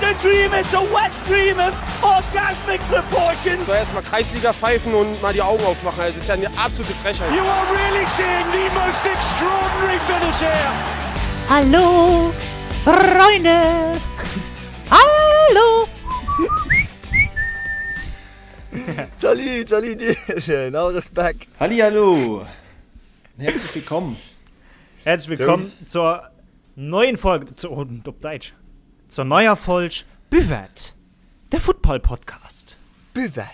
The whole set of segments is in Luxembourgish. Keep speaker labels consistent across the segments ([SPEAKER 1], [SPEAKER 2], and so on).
[SPEAKER 1] a dream, it's a wet dream of orgasmic proportions.
[SPEAKER 2] So erstmal Kreisliga pfeifen und mal die Augen aufmachen. Das ist ja eine absolute Frechheit.
[SPEAKER 3] You are really seeing the most extraordinary finish here.
[SPEAKER 4] Hallo, Freunde! Hallo!
[SPEAKER 5] Salut, salut Dierchen, all Respekt.
[SPEAKER 6] Hallihallo, herzlich willkommen.
[SPEAKER 7] Herzlich willkommen zur neuen Folge, zu, oh, op Däitsch, zur neuer Folg Buvette, der Football Podcast.
[SPEAKER 5] Buvette.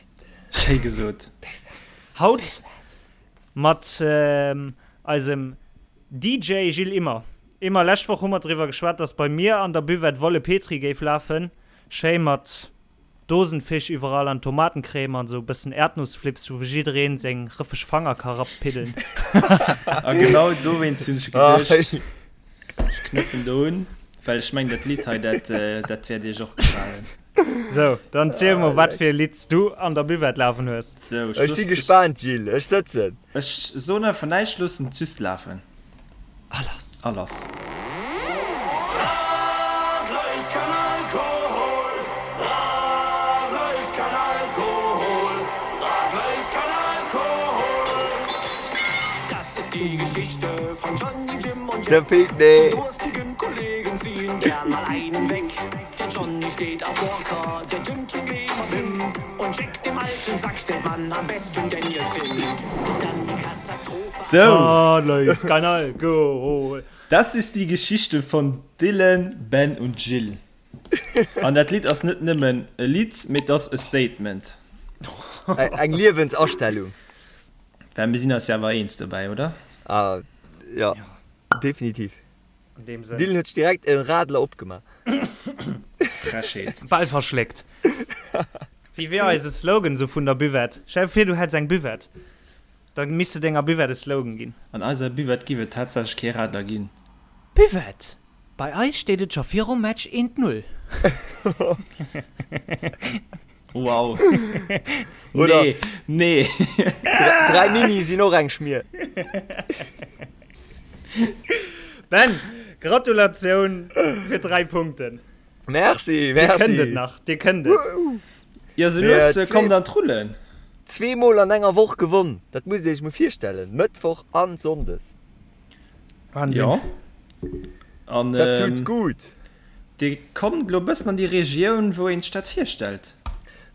[SPEAKER 6] Schéi gesot.
[SPEAKER 7] Haut mat ähm, eisem DJ Gilles Immer. Immer, lescht Woch hu mer driwwer geschwat, dass bei mir an der Buvette Wolle Petri géif lafen. Schéi mat Dosenfisch iwwerall an Tomatencreme an sou bëssen Erdnussflips, wou jiddereen seng rëffeg Fanger ka rapiddeln.
[SPEAKER 6] A genau dowéinst hunn ech geduecht, ech knëppen do un, well ech mengen, dat Lidd hei, dat, dat wäert iech och gefalen.
[SPEAKER 7] Sou, dann ziel mol, wat fir e Lidd s du an der Buvette lafen hues.
[SPEAKER 6] Sou,
[SPEAKER 5] ech
[SPEAKER 6] ech
[SPEAKER 5] si gespaant, Gilles, ech sëtzen.
[SPEAKER 6] Ech soen einfach näischt, loossen et just lafen.
[SPEAKER 7] A lass!
[SPEAKER 6] A lass!
[SPEAKER 5] Der feelt nee.
[SPEAKER 6] Sou.
[SPEAKER 7] Radler ist kein Alkohol.
[SPEAKER 6] Das ist die Geschichte von Dylan, Ben und Jill. An dat Lidd ass net nëmmen e Lidd, mee et ass e Statement.
[SPEAKER 5] Eng Liewensastellung.
[SPEAKER 6] Well mir sinn eis jo awer eens dobäi, oder?
[SPEAKER 5] Ah, jo, definitiv.
[SPEAKER 7] An deem Sënn.
[SPEAKER 5] Dylan huet sech direkt e Radler opgemaach.
[SPEAKER 6] Frechheet.
[SPEAKER 7] Bal verschléckt. Wéi wier eise Slogan sou vun der Buvette? Stell dir vir, du hätts eng Buvette. Da misst de denger Buvette e Slogan ginn.
[SPEAKER 6] An eiser Buvette giff et tatsächlech kee Radler ginn.
[SPEAKER 7] Buvette! Bei eis steet et scho virum Match eent Null.
[SPEAKER 6] Wow.
[SPEAKER 5] Oder
[SPEAKER 6] Nee, nee.
[SPEAKER 5] 3 Mini sinn och eng Schmier.
[SPEAKER 7] Ben, Gratulatioun fir 3 Punkten.
[SPEAKER 5] Merci,
[SPEAKER 7] Dir
[SPEAKER 5] merci.
[SPEAKER 7] kënnt et nach, dir kënnt et.
[SPEAKER 6] Jo, sou
[SPEAKER 5] Mir
[SPEAKER 6] lues
[SPEAKER 5] zwee-
[SPEAKER 6] kommt an d'Rullen.
[SPEAKER 5] Zweemol an enger Woch gewonn, dat musst Dir Iech mol virstellen, Mëttwoch an Sonndes.
[SPEAKER 7] Wahnsinn.
[SPEAKER 6] Jo. An
[SPEAKER 5] Dat tut
[SPEAKER 6] ähm,
[SPEAKER 5] gut.
[SPEAKER 6] Dir kommt elo e bëssen an déi Regioun, wou een sech dat virstellt.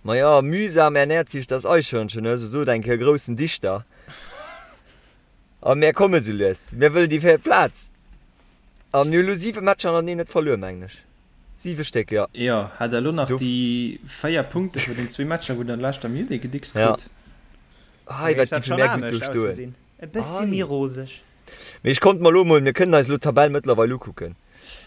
[SPEAKER 5] Maja, mühsam ernährt sich das Eichhörnchen, ne, sou sot eng Kéier e groussen Dichter. A mär komme sou lues, mär wëllen déi véiert Plaz. A mir hu lo siwe Matcher hannerteneen net verluer, mengen ech. Siwe Stéck, jo.
[SPEAKER 6] Jo, hat der elo nach
[SPEAKER 5] Do.
[SPEAKER 6] déi 4 Punkte vun den zwee Matcher, wou der an leschter Minutt ee gedickst
[SPEAKER 5] Ja.
[SPEAKER 6] krut.
[SPEAKER 5] Hei,
[SPEAKER 7] Géif
[SPEAKER 5] wat
[SPEAKER 7] dat
[SPEAKER 5] géife
[SPEAKER 7] schonn
[SPEAKER 5] mär gutt do
[SPEAKER 7] anescht
[SPEAKER 5] stoen.
[SPEAKER 7] ausgesinn. E bëssi méi
[SPEAKER 5] Hei.
[SPEAKER 7] roseg.
[SPEAKER 5] Mee ech konnt mer elo mol, mir kënnen eis elo d'Tabell mëttlerweil ukucken.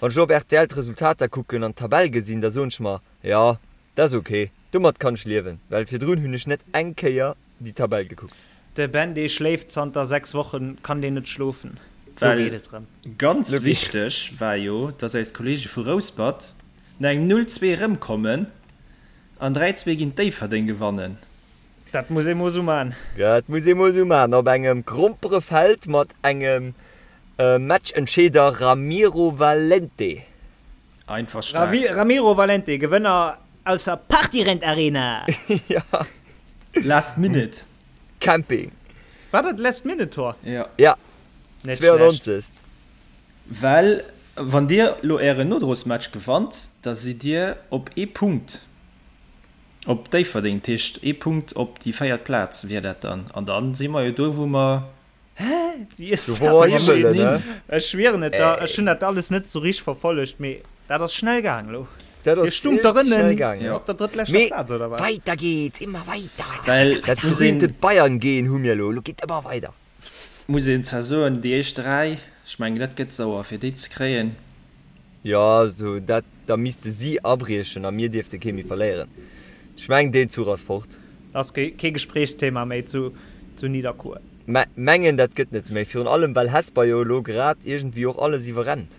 [SPEAKER 5] Wann ech elo op rtl d'Resultater kucken an d'Tabell gesinn, da soen ech mer, jo, dat ass ok, domat kann ech liewen, well virdrun hunn ech net eng Kéier déi Tabell gekuckt.
[SPEAKER 7] De Ben dee schléift zanter 6 Wochen, kann deen net schlofen, lo
[SPEAKER 6] Well
[SPEAKER 7] geet et rëm.
[SPEAKER 6] ganz
[SPEAKER 5] Lo geet.
[SPEAKER 6] wichteg war jo, dass eis Kollege vu Rouspert no engem 0, 2 erëmkommen an 3, 2 géint Déifferdeng gewannen.
[SPEAKER 7] Dat muss ee mol sou man.
[SPEAKER 5] Dat muss ee mol sou man, op engem Gromperefeld mat engem Matchentscheeder Ramiro Valente.
[SPEAKER 6] Einfach staark.
[SPEAKER 7] Ramiro Valente, Gewënner aus der Partyrent Arena!
[SPEAKER 5] Ja.
[SPEAKER 6] Last Minute.
[SPEAKER 5] Camping.
[SPEAKER 7] War dat Last Minute Tor?
[SPEAKER 6] Ja.
[SPEAKER 5] Ja.
[SPEAKER 7] Net schlecht.
[SPEAKER 5] 92.
[SPEAKER 6] Well wann dir lo ären Nodrosmatch gewannt, da sidd dir op ee Punkt op Déifferdeng. Dat heescht ee Punkt op déi véiert Plaz wier dat dann. An dann si mer jo do wou mer
[SPEAKER 7] Hä? Wéi ass
[SPEAKER 5] Do
[SPEAKER 7] dat
[SPEAKER 5] wou mer
[SPEAKER 7] méiglech?
[SPEAKER 5] hi wëllen, ne?
[SPEAKER 7] Ech schwieren et der, ech hunn dat alles net sou richteg verfollegt, mee dat ass schnell gaang elo.
[SPEAKER 5] Dat
[SPEAKER 7] Dir
[SPEAKER 5] ass
[SPEAKER 7] stungt der
[SPEAKER 5] schnell
[SPEAKER 7] ënnen
[SPEAKER 5] gaang,
[SPEAKER 6] Ja.
[SPEAKER 7] op der drëttleschter
[SPEAKER 5] Mee
[SPEAKER 7] Plaz, oder wat?
[SPEAKER 5] weiter geht's, immer weiter, weiter,
[SPEAKER 6] Well
[SPEAKER 5] weiter, weiter.
[SPEAKER 6] muss een-
[SPEAKER 5] Berühmte Bayern-Gen hu mir elo, elo geet ëmmer weider.
[SPEAKER 6] Muss een zwar soen, déi éischt 3, ech mengen dat gëtt sauer fir déi ze kréien.
[SPEAKER 5] Jo, sou dat, da misste si abriechen a mir dierfte kee méi verléieren. Ech mengen deen Zuch ass fort.
[SPEAKER 7] Ass kee Gespréichsthema méi zu Nidderkuer.
[SPEAKER 5] Mä mengen dat gëtt net méi, virun allem well Hesper jo elo grad iergendwéi och alles iwwerrennt.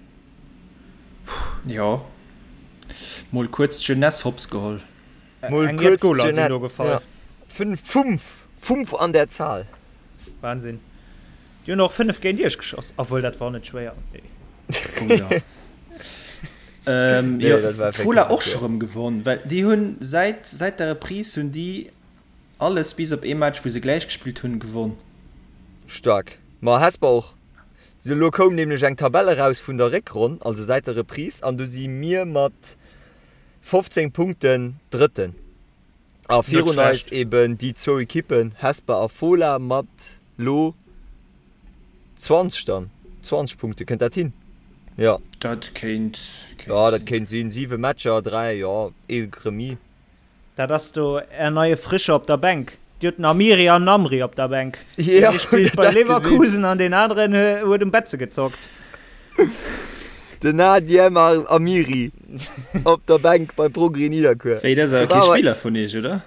[SPEAKER 6] Jo, mol kuerz d'Jeunesse hops geholl.
[SPEAKER 5] Mol
[SPEAKER 7] Eng jett
[SPEAKER 5] kuerz
[SPEAKER 7] Goler sinn do
[SPEAKER 5] d'Jeunesse,
[SPEAKER 7] gefall.
[SPEAKER 5] ja. Fünf, fünf, fünf an der Zahl.
[SPEAKER 7] Wahnsinn. Déi hunn och 5 géint iech geschoss, obwuel dat war net schwéier.
[SPEAKER 6] Oh jo. Ähm, nee, jo, Fola och scho rëm gewonn, well déi hunn säit, säit der Reprise hunn déi alles bis op ee Match, wou se gläich gespillt hunn, gewonn.
[SPEAKER 5] Staark. Ma Hesper och. Sou, elo koum nämlech eng Tabell eraus vun der Réckronn, also säit der Reprise, an do si mir mat 15 Punkten Drëtten. A virun eis eben déi zwou Ekippen, Hesper a Fola mat lo 20 dann, 20 Punkte, kënnt dat hin? Jo.
[SPEAKER 6] Dat kéint
[SPEAKER 5] Jo, dat kéint sinn. 7 Matcher, 3, jo, ee Remis.
[SPEAKER 7] Dat ass do är neie Frische op der Bänk. Dir hutt den Amiri an den Amri op der Bänk. Deen ee spillt bei Leverkusen an deen aneren huet um Betze gezockt.
[SPEAKER 5] Den Nadiem Amiri op der Bänk beim Progrès Nidderkuer.
[SPEAKER 6] Wéi, dat ass awer kee Spiller vun iech, oder?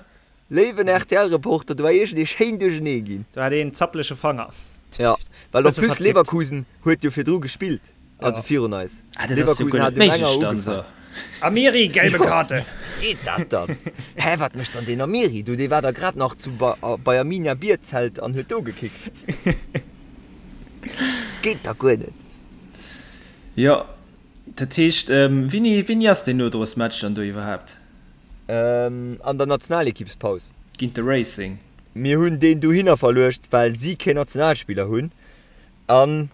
[SPEAKER 5] Léiwen RTL-Reporter, do war iergendee schéin duerchenee ginn.
[SPEAKER 7] Do hat een zappleche Fanger.
[SPEAKER 5] Jo, well en plus Leverkusen huet jo virdru gespillt, also virun eis.
[SPEAKER 6] Ah, dat ass jo guer net méiglech dann esou.
[SPEAKER 7] Amiri, gelbe Karte!
[SPEAKER 5] Geet dat dann? Hä, wat mécht dann deen Amiri do? Dee war da grad nach zu bei Arminia Bierzelt an huet do gekickt. Geet da guer net.
[SPEAKER 6] Jo, dat heescht, wéini, wéini ass deen Nodrosmatch dann do iwwerhaapt?
[SPEAKER 5] An der Nationalekippspaus.
[SPEAKER 6] Géint de Racing.
[SPEAKER 5] Mir hunn deen dohinner verluecht, well si keen Nationalspiller hunn an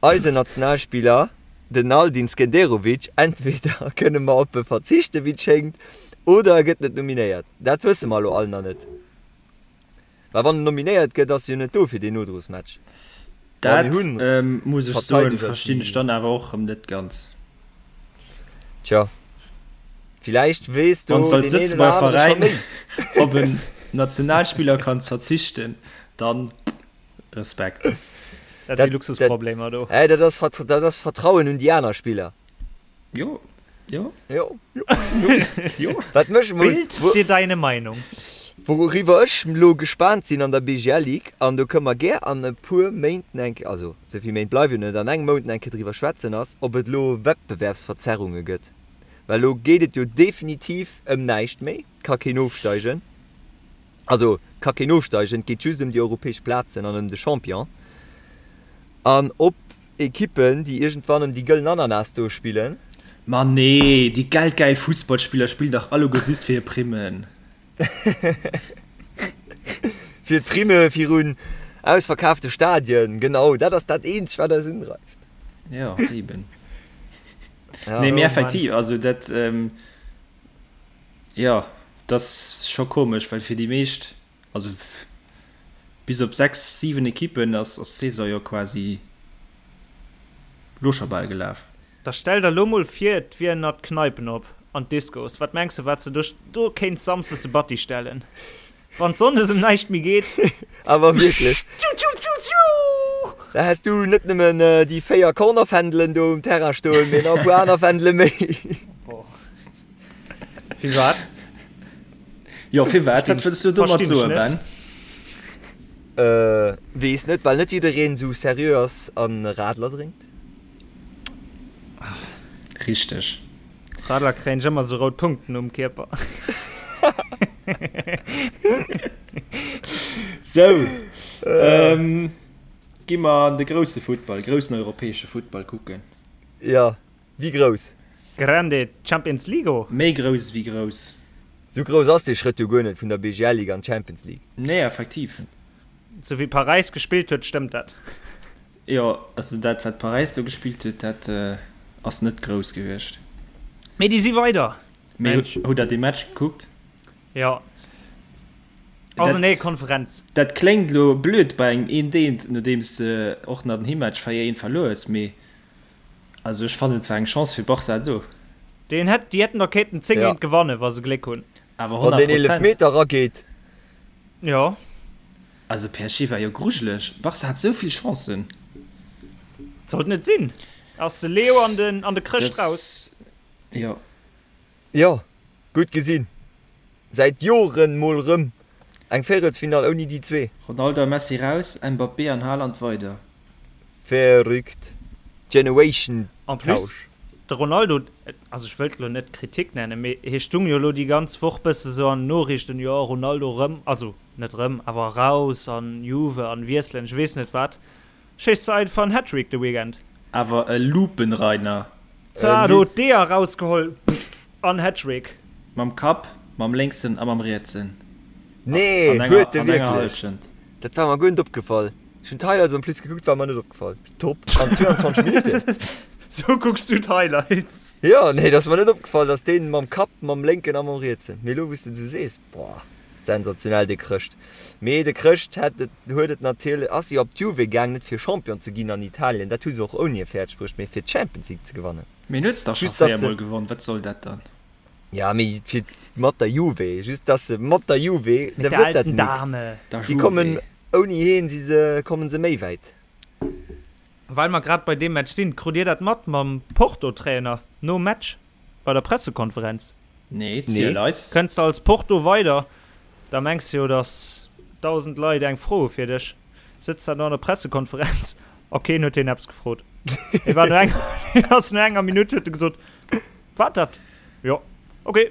[SPEAKER 5] eisen Nationalspiller, den Aldin Skenderovic, entweder kënne mer op e verzichten, wéi et schéngt, oder e gëtt net nominéiert. Dat wësse mer elo all nach net. Well wann en nominéiert gëtt, ass e jo net do fir deen Nodrosmatch.
[SPEAKER 6] Dat muss ech soen, verstinn ech dann awer och erëm net ganz.
[SPEAKER 5] Tja, villäicht weess do
[SPEAKER 6] deen een oder anere scho méi. Op en Nationalspiller kann verzichten, dann Respekt.
[SPEAKER 7] Dat si Luxusproblemer do.
[SPEAKER 5] Hey, dat ass Vertrauen un déi aner Spiller.
[SPEAKER 6] Jo, jo.
[SPEAKER 5] Jo, jo. Jo. Wat mech mol.
[SPEAKER 7] Bild dir deine Meinung.
[SPEAKER 5] Wouriwwer ech lo gespaant sinn an der BGL Ligue, an do kënne mer gär an e puer Méinten eng Kéier, also esou vill Méint bleiwen jo net, an engem Mount eng Kéier driwwer schwätzen, ass, ob et elo Wettbewerbsverzerrunge gëtt. Well elo geet et jo definitiv ëm näischt méi, ka keen ofsteigen, also ka keen ofsteigen, et geet just ëm déi europäesch Plazen an ëm de Champion. An ob Ekippen, déi iergendwann ëm déi gëllen Ananas do spillen.
[SPEAKER 6] Ma nee, déi geldgäil Fussballspiller spillen dach alleguer just fir hir Primmen.
[SPEAKER 5] Fir d'Primme virun ausverkaafte Stadien, genau, dat ass dat eenzegt, wat eis undreift.
[SPEAKER 6] Jo, eben. Nee, mee effektiv, also dat, jo, dat ass scho komesch, well fir déi meescht, Also bis op 6, 7 Ekippen ass d'Saison jo quasi lo scho bal gelaf.
[SPEAKER 7] Da stell der lo mol vir et wieren nach d'Kneipen op an d'Discos, wat mengs de wat se do do kéints Samsdes de Batti stellen wann Sonndes em näischt méi geet?
[SPEAKER 5] Awer wierklech, da häss du net nëmmen déi 4 Cornerfändelen do um Terrain stoen, mee nach e puer aner Fändele méi.
[SPEAKER 7] Firwat?
[SPEAKER 6] Jo, firwat? Wat wëlls du domat soen, Ben?
[SPEAKER 5] Äh, weess net, well net jiddereen esou seriö ass an Radler drénkt.
[SPEAKER 6] Richteg.
[SPEAKER 7] Radler kréien ech ëmmer sou rout Punkten um Kierper.
[SPEAKER 6] Sou, ähm, gi mer an de grousse Futtball, groussen europäesche Futtball kucken.
[SPEAKER 5] Jo. Wéi grouss?
[SPEAKER 7] Grande Champions League?
[SPEAKER 6] Méi grouss ewéi grouss.
[SPEAKER 5] Sou grouss ass dee Schrëtt jo guer net vun der BGL Ligue an d'Champions League.
[SPEAKER 6] Nee, effektiv.
[SPEAKER 7] Sou wéi Paräis gespillt huet, stëmmt dat.
[SPEAKER 6] Jo, also dat wat Paräis do gespillt huet, dat ass net grouss gewiescht.
[SPEAKER 7] Mee déi si weider.
[SPEAKER 6] Mee hutt der dee Match gekuckt?
[SPEAKER 7] Jo. Ass en nee Konferenz.
[SPEAKER 6] Dat kléngt elo blöd bei engem eent eent, nodeems de och nach den Heemmatch 4 eent verluer hues, mee Also ech fannen et war eng Chance fir Barca do.
[SPEAKER 7] Deen hätt, déi hätten der kéinten 10 géint gewannen, wa se Gléck hunn.
[SPEAKER 6] Awer
[SPEAKER 5] Wann
[SPEAKER 6] 100
[SPEAKER 5] deen
[SPEAKER 6] Prozent.
[SPEAKER 5] Eelefmeter rageet.
[SPEAKER 7] Jo.
[SPEAKER 6] Also PSG war jo grujeleg. Barca hat sou vill Chancen.
[SPEAKER 7] Sollt net sinn. Ass de Leo an den an de Chrëscht raus.
[SPEAKER 6] Das, jo.
[SPEAKER 5] Jo, gutt gesinn. Säit Joren mol rëm eng Véierelsfinall ouni déi zwee.
[SPEAKER 6] Ronaldo a Messi raus, Mbappé an Haaland weider.
[SPEAKER 5] Verrückt. Generation
[SPEAKER 7] En plus,
[SPEAKER 5] Tausch.
[SPEAKER 7] de Ronaldo, also ech wëllt elo net Kritik nennen, mee hie stung jo elo déi ganz Woch bësse sou an den Noriichten, jo Ronaldo rëm, also net rëm, awer raus an Juve an wiesselen, ech weess net wat, schéisst se einfach en Hattrick de Weekend.
[SPEAKER 6] Awer e Lupenreiner.
[SPEAKER 7] Zwar do d'Eeër rausgeholl an Hattrick.
[SPEAKER 6] Mam Kapp, mam lénksen a mam rietsen.
[SPEAKER 5] Nee, huet e wierklech? Dat war mer guer net opgefall. Ech hunn d'Highlights en plus gekuckt, war mer net opgefall. Top, an 22 Minutten.
[SPEAKER 7] Sou kucks du d'Highlights?
[SPEAKER 5] Jo, nee, dat ass mer net opgefall, dass deen mam Kapp, mam lénken a mam rietsen. Mee elo wou s de et esou sees, boah, sensationell dee Chrëscht. Mee de Chrëscht hätt et, huet et natierlech, ass jo op d'Juve gaang, net fir Champion ze ginn an Italien, dat hu se och ouni e fäerdeg bruecht, mee fir d'Champions League ze gewannen.
[SPEAKER 6] Mee en huet se dach scho 4 mol gewonn, wat soll dat dann?
[SPEAKER 5] Ja, mee fir mat der Juve, just dass se mat der Juve,
[SPEAKER 7] da gëtt dat nix.
[SPEAKER 5] Déi kommen ouni heen, si se, kommen se méi wäit.
[SPEAKER 7] Well mer grad bei deem Match sinn, krut dir dat mat mam Porto-Trainer nom Match bei der Pressekonferenz?
[SPEAKER 6] Nee, ziel eis.
[SPEAKER 7] Kënns de als Porto weider, da mengs de jo, dass 1.000 Leit eng Fro hu fir dech. Sëtzt dat no an der Pressekonferenz a keen huet hien eppes gefrot. Hie war no enger, hien ass no enger Minutt huet e gesot, Wat dat? Jo, okay,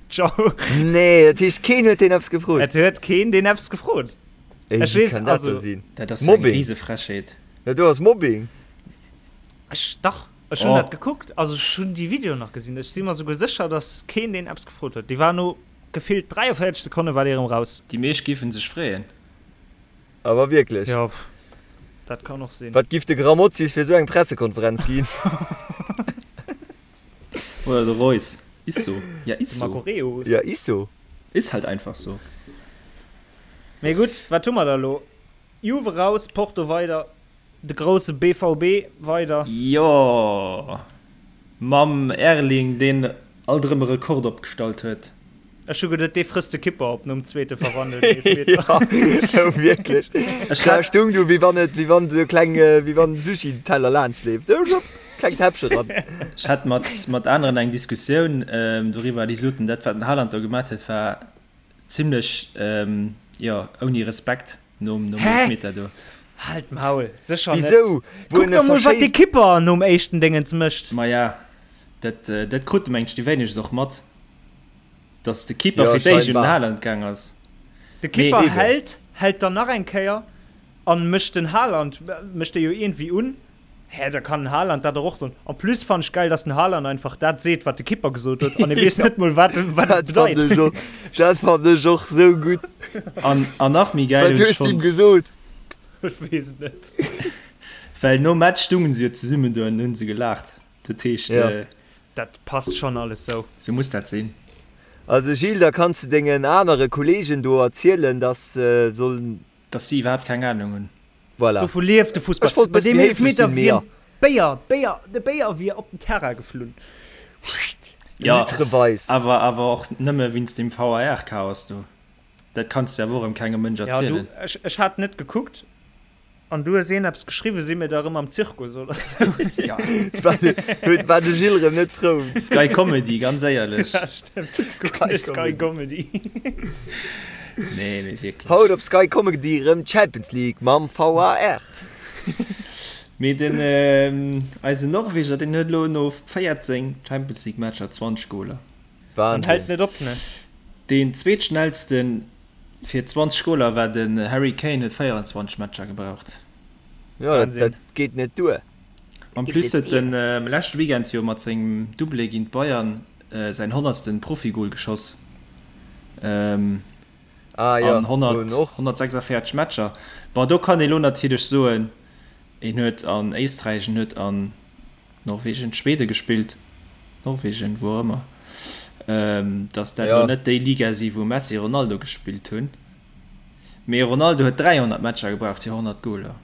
[SPEAKER 7] ciao.
[SPEAKER 5] Nee, dat heescht keen huet deen eppes gefrot?
[SPEAKER 7] Et huet keen deen eppes gefrot.
[SPEAKER 5] Ey,
[SPEAKER 7] Ech
[SPEAKER 5] wéi
[SPEAKER 7] weess,
[SPEAKER 5] kann dat
[SPEAKER 7] also.
[SPEAKER 5] da sinn?
[SPEAKER 6] Dat ass jo eng
[SPEAKER 5] Mobbing.
[SPEAKER 6] Risefrechheet.
[SPEAKER 5] Dat do ass Mobbing.
[SPEAKER 7] Ech, dach, ech hunn
[SPEAKER 6] Oh.
[SPEAKER 7] dat gekuckt, also ech hunn déi Videoen nach gesinn. Ech si mer souguer sécher, datt keen deen eppes gefrot huet. Dee war no gefillt 43 Sekonne war dee erëm raus.
[SPEAKER 6] Déi meescht giffen sech freeën.
[SPEAKER 5] Awer wierklech.
[SPEAKER 7] Jo, dat kann och sinn.
[SPEAKER 5] Wat giff de Grammozis fir esou eng Pressekonferenz ginn?
[SPEAKER 6] Oder de Reus. Is so. Ja, is
[SPEAKER 7] De
[SPEAKER 6] so.
[SPEAKER 7] Marco Reus.
[SPEAKER 5] Ja, is so.
[SPEAKER 6] Is halt einfach so.
[SPEAKER 7] Mee gutt, wat hu mer da lo? Juve raus, Porto weider, de grousse BVB weider.
[SPEAKER 6] Jo, mam Erling, deen alt erëm e Rekord opgestallt huet.
[SPEAKER 7] Ech hu geduet, dee frësst de Kipper op nom zweete verwandelten Eelefmeter.
[SPEAKER 5] Jo, wierklech.
[SPEAKER 6] Ech
[SPEAKER 5] Da
[SPEAKER 6] hat.
[SPEAKER 5] stung du, wéi wann et, wéi wann esou kleng, wéi wann en Sushi-Teller laanscht leeft. Do, schwupp, klengt Häppche ran.
[SPEAKER 6] Ech hat mat, mat aneren eng Diskussioun doriwwer, déi soten, dat wat den Haaland do gemat huet, war zimlech, jo, ouni Respekt nom, nom
[SPEAKER 7] Hä?
[SPEAKER 6] Eelefmeter do.
[SPEAKER 7] Halt d'Maul, sécher net.
[SPEAKER 5] Wisou? Wou
[SPEAKER 7] Kuck
[SPEAKER 5] en e
[SPEAKER 7] der mol, wat dee
[SPEAKER 5] verschéisst.
[SPEAKER 7] Kipper nom éischten Déngens mécht.
[SPEAKER 6] Maja, dat, dat krute mengt ech déi wéinegst och mat. Dass de Keeper
[SPEAKER 5] Jo,
[SPEAKER 6] fir d'éischt un den
[SPEAKER 5] scheinbar.
[SPEAKER 6] Haaland gaang ass.
[SPEAKER 7] De Keeper
[SPEAKER 5] Nee.
[SPEAKER 7] hält, hält dann nach eng Kéier an mécht den Haaland, mécht e jo iergendwéi un. Hä, da kann den Haaland dat dach och soen. En plus fannen ech geil, dass den Haaland einfach dat seet, wat de Keeper gesot huet an e weess net mol, wat wat et
[SPEAKER 5] Dat fand
[SPEAKER 7] bedeit.
[SPEAKER 5] ech och, dat fand ech och sou gutt.
[SPEAKER 6] An, an nach méi geil
[SPEAKER 5] Wat
[SPEAKER 6] hunn ech
[SPEAKER 5] hues du him
[SPEAKER 6] fonnt,
[SPEAKER 5] gesot?
[SPEAKER 7] Ech weess et net.
[SPEAKER 6] well nom Match stungen se jo zesummen do an hunn se gelaacht. Dat heescht,
[SPEAKER 5] Ja.
[SPEAKER 7] Dat passt schon alles sou.
[SPEAKER 6] Sou muss dat sinn.
[SPEAKER 5] Also Gilles, da kanns de dengen anere Kollegen do erzielen, dass se sollen.
[SPEAKER 6] Dass si iwwerhaapt keng Ahnung hunn.
[SPEAKER 5] Voilà.
[SPEAKER 7] Dovu lieft de Fussball.
[SPEAKER 5] Ech wollt
[SPEAKER 7] Bei
[SPEAKER 5] bëssen
[SPEAKER 7] deem
[SPEAKER 5] méi héiflech
[SPEAKER 7] Eelefmeter
[SPEAKER 5] sinn, mee
[SPEAKER 7] wier
[SPEAKER 5] ja.
[SPEAKER 7] Béier, Béier, de Béier wier op den Terrain geflunn.
[SPEAKER 6] Jo,
[SPEAKER 5] Litreweis.
[SPEAKER 6] awer awer och nëmme wéinst deem VAR-Chaos do. Dat kanns de awer och erëm kengem Mënsch
[SPEAKER 7] Ja, du,
[SPEAKER 6] erzielen.
[SPEAKER 7] ech, ech hat net gekuckt. An du hues een eppes geschriwwen, si mir da rëm am Zirkus oder sou?
[SPEAKER 6] Ja.
[SPEAKER 5] Huet war de Gilles rëm net frou.
[SPEAKER 6] Sky Comedy, ganz éierlech.
[SPEAKER 7] Ja, stimmt. Kucken ech Sky Comedy.
[SPEAKER 6] Nee, mee wierklech.
[SPEAKER 5] Haut op Sky Comedy rëm d'Champions League mam VAR.
[SPEAKER 6] Mee den eisen Norweger, deen huet elo no 14 Champions League Matcher 20 Goler.
[SPEAKER 7] An
[SPEAKER 5] Wahnsinn.
[SPEAKER 7] hält net op, ne?
[SPEAKER 6] Deen zweetschnellsten Fir 20 Goler war den Harry Kane huet 24 Matcher gebraucht.
[SPEAKER 5] Jo, dat, dat geet net duer.
[SPEAKER 6] En plus huet en leschte Weekend jo mat sengem Doublé géint d'Bayern säin honnertsten Profigol geschoss.
[SPEAKER 5] Ah jo,
[SPEAKER 6] An
[SPEAKER 5] wou en och.
[SPEAKER 6] 146 Matcher. Bon, do kann ee lo natierlech soen, en huet an Éisträich, en huet an Norwegen, Schweden gespillt, Norwegen, wou och ëmmer, dass dat elo net déi Liga si wou Messi, Ronaldo gespillt hunn, mee Ronaldo huet 300 Matcher gebraucht fir 100 Goler.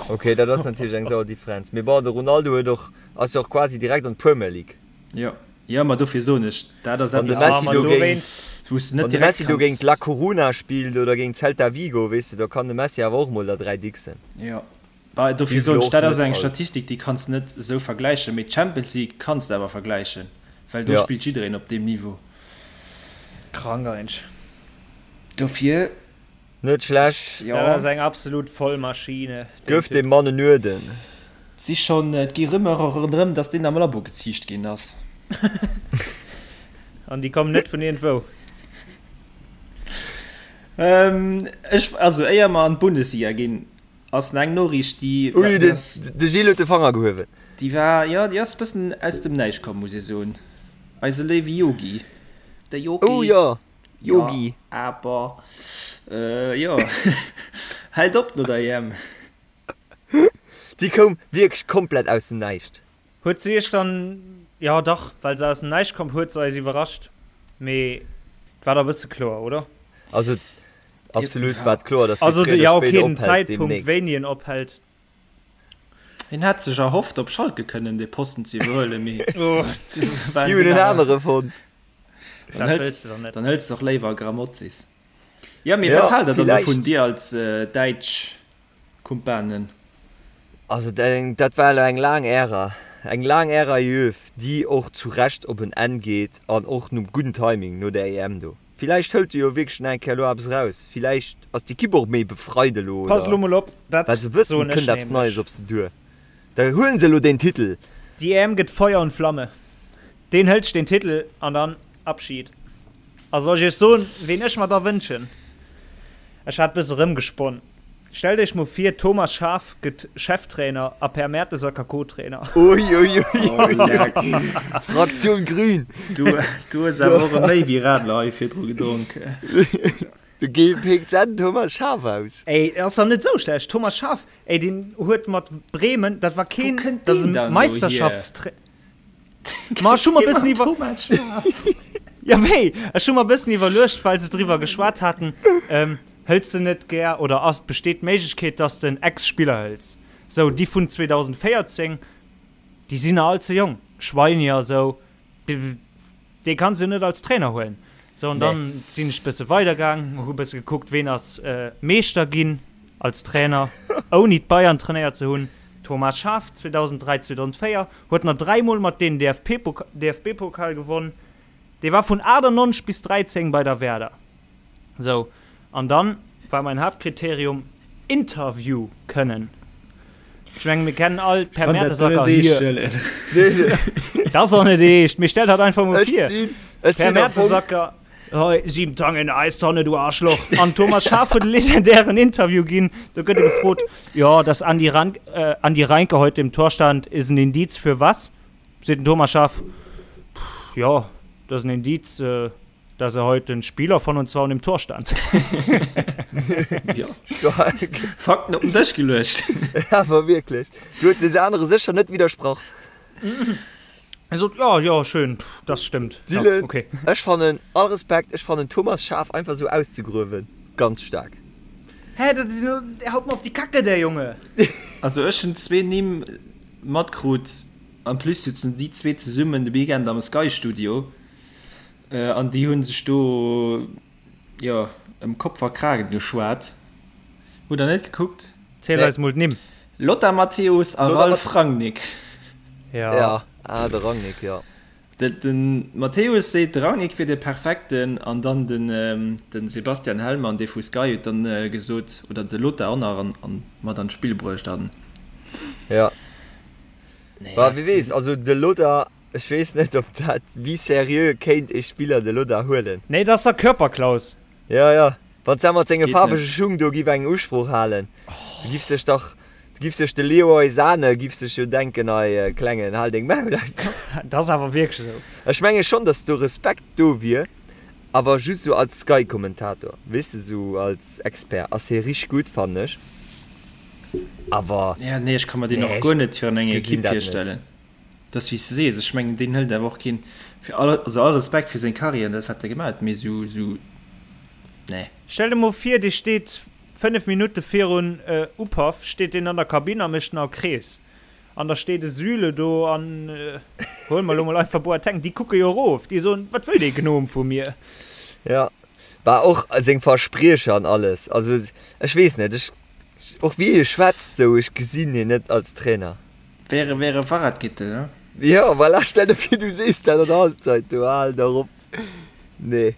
[SPEAKER 5] Ok, dat ass natierlech eng sauer Differenz, mee bon, de Ronaldo huet och, ass jo och quasi direkt an d'Premier League.
[SPEAKER 6] Jo, jo, ma dofir soen ech, dat ass
[SPEAKER 5] Wann de
[SPEAKER 6] eppes,
[SPEAKER 5] Messi do géint,
[SPEAKER 6] wou s de net
[SPEAKER 5] wann de
[SPEAKER 6] direkt
[SPEAKER 5] Messi do géint
[SPEAKER 6] kanns.
[SPEAKER 5] La Coruna spillt oder géint Celta Vigo, weess de, da kann de Messi awer och mol der 3 dixen.
[SPEAKER 6] Jo. Bah, dofir
[SPEAKER 5] Déi
[SPEAKER 6] soen ech,
[SPEAKER 5] och
[SPEAKER 6] dat ass
[SPEAKER 5] net
[SPEAKER 6] eng
[SPEAKER 5] als.
[SPEAKER 6] Statistik, déi kanns de net esou vergläichen, mee d'Champions League kanns de awer vergläichen, well do
[SPEAKER 5] Ja.
[SPEAKER 6] spillt jiddereen op deem Niveau.
[SPEAKER 7] Krank eigentlech.
[SPEAKER 6] Dofir,
[SPEAKER 5] Net schlecht.
[SPEAKER 6] jo.
[SPEAKER 7] Dat ass eng absolut Vollmaschine, deen
[SPEAKER 5] Gëff
[SPEAKER 7] Typ.
[SPEAKER 5] dem Mann en Uerden.
[SPEAKER 6] Et si schonn, et gi Rumeure ronderëm, datt deen am Labo geziicht ginn ass.
[SPEAKER 7] An déi kommen net vun iergendwou.
[SPEAKER 6] Ech, also éier mer an d'Bundesliga ginn, Ass eng Noriicht déi.
[SPEAKER 5] Ui, de Gilles huet de Fanger gehuewen.
[SPEAKER 6] Déi war, jo, déi ass bëssen aus dem Näischt komm, muss ee soen. Eise léiwe Yogi. De Yogi.
[SPEAKER 5] Oh jo, Yogi.
[SPEAKER 6] Jo, awer, jo, hält op no der EM.
[SPEAKER 5] Déi koum wierklech komplett aus dem Näischt.
[SPEAKER 7] Huet se iech dann, jo dach, well se aus dem Näischt komm, huet se eis iwwerrascht, mee et war da bësse kloer, oder?
[SPEAKER 5] Also absolut war et kloer, dass
[SPEAKER 7] dee fréier oder spéider ophält demnächst. Zeitpunkt, wéini en ophält.
[SPEAKER 6] Hien hat sech erhofft, op Schalke kënnen dee Posten ze iwwerhuelen, mee
[SPEAKER 5] déi hunn en anere fonnt.
[SPEAKER 6] Dann hëls dann hëls de och léiwer Grammozis. Jo, mee wat haalt der dann dovun, dir als däitsch Kumpanen?
[SPEAKER 5] Also dat war elo eng laang Ära, eng laang Ära Jööw, déi och zu Recht op en Enn geet an och nom gudden Timing no der EM do. Villäicht hëlt e jo wierklech nach eng Kéier elo eppes eraus, villäicht ass d'Ekipp och méi befreit elo
[SPEAKER 7] Pass elo mol op, dat
[SPEAKER 5] well se wëssen,
[SPEAKER 7] soen
[SPEAKER 5] et
[SPEAKER 7] ech
[SPEAKER 5] kënnt eppes
[SPEAKER 7] nämlech.
[SPEAKER 5] Neies op se duer. Da huelen se elo deen Titel.
[SPEAKER 7] Déi EM gëtt Feuer und Flamme. Deen hëlt sech deen Titel an dann Abschied. A soll ech iech soen, ween ech mer da wënschen? Ech hat bësse rëmgesponn. Stellt iech mol vir, Thomas Schaaf gëtt Cheftrainer a Per Mertesacker Co-Trainer.
[SPEAKER 5] Uiuiuiui, Fraktion Grün.
[SPEAKER 6] Du, du hues awer och e méi wéi Radler hei virdru gedronk.
[SPEAKER 5] Du pécks en Thomas Schaaf aus.
[SPEAKER 7] Ey, ass dach net esou schlecht. Thomas Schaaf, ey, deen huet mat Bremen, dat war keen,
[SPEAKER 6] Wou kënnt
[SPEAKER 7] dat ass
[SPEAKER 6] deen
[SPEAKER 7] e
[SPEAKER 6] dann elo hier?
[SPEAKER 7] Meisterschaftstrainer. Ma ech hu mer bëssen iwwer.
[SPEAKER 6] Thomas Schaaf.
[SPEAKER 7] Ja, wéi? Ech hu mer bëssen iwwerluecht, well se driwwer geschwat haten, ähm, hëls de net gär oder ass, besteet d'Méiglechkeet, dass de en Ex-Spiller hëls? Sou, déi vun 2014, déi sinn nach all ze jonk, Schweini a sou, dee kanns de jo net als Trainer huelen. Sou, an dann sinn ech bësse weidergaang, hu bësse gekuckt, ween ass Meeschter ginn als Trainer, ouni d'Bayern trainéiert ze hunn, Thomas Schaaf 2003, 2004. Huet nach dräimol mat deenen DFB-Pokal gewonn. Dee war vun 98 bis 13 bei der Werder. Sou, an dann war mein Haaptkriterium Interview kënnen. Ech mengen, mir kennen all d'Per Mertesacker hier. Dat ass och net eescht, mee stell dat einfach mol vir. Per Mertesacker. Hei, sieben Tage in der Eistonne, du Arschloch. An Thomas Schaaf huet e legendären Interview ginn. Do gëtt e gefrot, ja, dass Andi, Rank, äh, Andi Reinke heute im Tor stand, ist ein Indiz für was? Seet den Thomas Schaaf, pff, ja, das ist ein Indiz, äh, dass er heute ein Spieler von uns war und im Tor stand.
[SPEAKER 6] Ja.
[SPEAKER 5] Stark.
[SPEAKER 6] Fakten op den Dësch geluecht.
[SPEAKER 5] Awer wierklech. Du huet den anere sécher net widdersprach.
[SPEAKER 7] Er sot, ja, ja, schön, pff, das stimmt.
[SPEAKER 5] Dylan,
[SPEAKER 7] ja, okay.
[SPEAKER 5] Ech fannen, all Respekt, ech fannen Thomas Schaaf einfach sou auszegruewen ganz staark.
[SPEAKER 7] Hä, dat, der haut mer op die Kacke, der Junge!
[SPEAKER 6] Also ech hunn zwee Nimm matkrut, en plus sutzen déi zwee zesummen de Weekend am Sky Studio an déi hunn sech do jo ëm Kopf a Kragen geschwat. Hutt der net gekuckt?
[SPEAKER 7] Ziel eis mol d'Nimm.
[SPEAKER 6] Lothar Matthäus a Ralf Rangnick.
[SPEAKER 7] Ja.
[SPEAKER 5] Ja, ah, de Rangnick, ja.
[SPEAKER 6] De, de Matthäus seet, de Rangnick wier de perfekten an dann den, den Sebastian Hellmann, dee vu Sky, huet dann gesot, oder de Lothar och nach an, an mat an d'Spill bruecht an.
[SPEAKER 5] Ja.
[SPEAKER 6] Nee,
[SPEAKER 5] Bah, wie weess, also de Lothar, ech weess net, ob dat, wéi seriö kéint ee Spiller de Lothar huelen.
[SPEAKER 7] Nee, dat ass der Körperklaus.
[SPEAKER 5] Ja, ja. Wann s de mat senge
[SPEAKER 6] Geet
[SPEAKER 5] faarwege
[SPEAKER 6] net.
[SPEAKER 5] Schung do giff eng Usprooch halen, du giffs dech dach, du giffs dech de Leroy Sane giff sech jo denken, Ei Klengen, hal deng Maul einfach.
[SPEAKER 7] Dat ass awer wierklech esou.
[SPEAKER 5] Ech menge schonn, datt do Respekt do wier, awer just esou als Sky-Kommentator, weess de, esou als Expert ass hie richteg gutt, fannen ech, awer.
[SPEAKER 6] Ja, nee, ech ka mer deen
[SPEAKER 5] Nee,
[SPEAKER 6] och
[SPEAKER 5] ech
[SPEAKER 6] guer net virun enger
[SPEAKER 5] gesinn
[SPEAKER 6] Ekipp
[SPEAKER 5] dat net.
[SPEAKER 6] virstellen. Dat ass wéi s de sees, ech mengen deen hëlt awer och keen, fir all, also all Respekt fir seng Carrière an dat wat e gemaach huet, mee esou, esou, nee.
[SPEAKER 7] Stell der mol vir, dee steet 5 Minutte virun Upaff, steet deen an der Kabinn a mécht nach e Krees. An da steet e Süle do an, huele mer elo mol einfach Boateng, déi kucke jo erof, déi soen, wat wëll dee Gnom vu mir?
[SPEAKER 5] Jo, bah och seng Verspriecher an alles, also ech weess net, ech, och wéi e schwätzt sou, ech gesinn hien net als Trainer.
[SPEAKER 6] Wäre wäre Fahrradkette, ne?
[SPEAKER 5] Jo, voilà, stell der vir du sees dat an der Halbzeit, du hal dach op. Nee.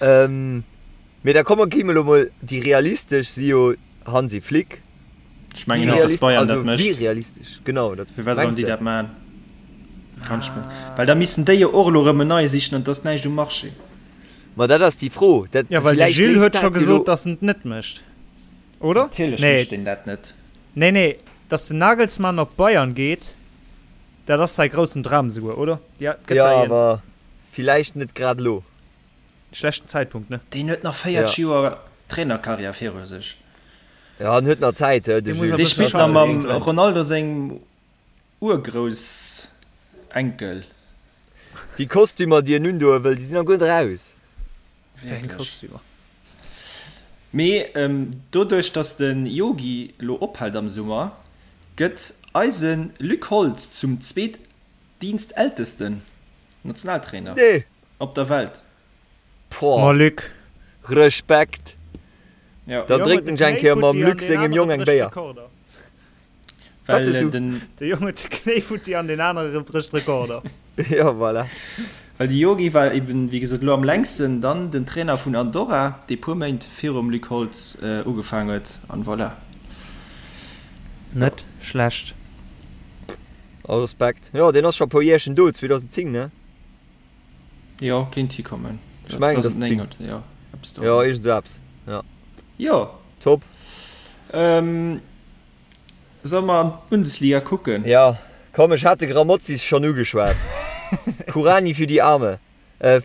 [SPEAKER 5] Ähm, mee da komme gi mer elo mol, déi realistesch si jo Hansi Flick.
[SPEAKER 6] Ech mengen net, dass Bayern dat mécht.
[SPEAKER 5] Wéi realistesch, genau. Dat
[SPEAKER 6] Firwat sollen déi dat maachen? Kann ech mir, well da missten déi jo och elo erëm en neie sichen an et ass näischt um Marché.
[SPEAKER 5] Ma dat ass déi Fro. Dat,
[SPEAKER 7] Jo, well de
[SPEAKER 5] villäicht
[SPEAKER 7] Gilles
[SPEAKER 5] léist
[SPEAKER 7] huet scho
[SPEAKER 5] dat jo
[SPEAKER 7] gesot,
[SPEAKER 5] elo.
[SPEAKER 7] dass en et net mécht, oder?
[SPEAKER 6] Natierlech
[SPEAKER 7] Nee.
[SPEAKER 6] mécht deen dat net.
[SPEAKER 7] Nee, nee, dass den Nagelsmann op Bayern geet. Dat ass säi groussen Dram esouguer, oder?
[SPEAKER 5] Ja, gëtt Ja, der awer villäicht net grad elo.
[SPEAKER 7] Schlechten Zäitpunkt, ne?
[SPEAKER 6] Deen huet nach 40
[SPEAKER 5] Ja.
[SPEAKER 6] Joer Trainerkarriär viru sech.
[SPEAKER 5] Ja, en huet nach Zäit, de
[SPEAKER 7] Dee muss
[SPEAKER 5] Jules.
[SPEAKER 7] e
[SPEAKER 6] Dee
[SPEAKER 7] bësse
[SPEAKER 6] spillt nach
[SPEAKER 7] schaffen,
[SPEAKER 6] mam
[SPEAKER 7] bis dran.
[SPEAKER 6] Ronaldo sengem Urgroussenkel.
[SPEAKER 5] Déi Kostümer, déi en undoe wëll, déi sinn nach guer net eraus.
[SPEAKER 7] Wéi eng
[SPEAKER 6] Wierklech.
[SPEAKER 7] Kostümer?
[SPEAKER 6] Mee doduerch, dass de Yogi lo ophält am Summer, gëtt eise Luc Holtz zum zweetdienstältesten Nationaltrainer
[SPEAKER 5] Nee!
[SPEAKER 6] op der Welt.
[SPEAKER 5] Boah.
[SPEAKER 7] Ma Luc.
[SPEAKER 5] Respekt!
[SPEAKER 6] Jo.
[SPEAKER 5] Da drénkt en eng Kéier mam Luc sengem Jong eng Béier.
[SPEAKER 6] Well den.
[SPEAKER 7] De Jong huet de Knéi futti an deen anere brécht Rekorder.
[SPEAKER 5] Jo, voilà.
[SPEAKER 6] Well de Yogi war eben, wéi gesot, elo am längsten dann den Trainer vun Andorra, dee puer Méint virum Luc Holtz ugefaang huet, an voilà.
[SPEAKER 7] Net schlecht.
[SPEAKER 5] All Respekt. Jo, deen ass scho e puer Jäerchen do, 2010, ne?
[SPEAKER 6] Jo, kéint hikommen.
[SPEAKER 5] Ech mengen, et ass 10.
[SPEAKER 6] 2009, jo, eppes do.
[SPEAKER 5] Jo, iergend esou eppes, jo.
[SPEAKER 6] Jo.
[SPEAKER 5] Top.
[SPEAKER 6] Solle mer an d'Bundesliga kucken?
[SPEAKER 5] Jo, komm, ech hat de Grammozis schonn ugeschwat. Kuranyi für die Arme. Äh,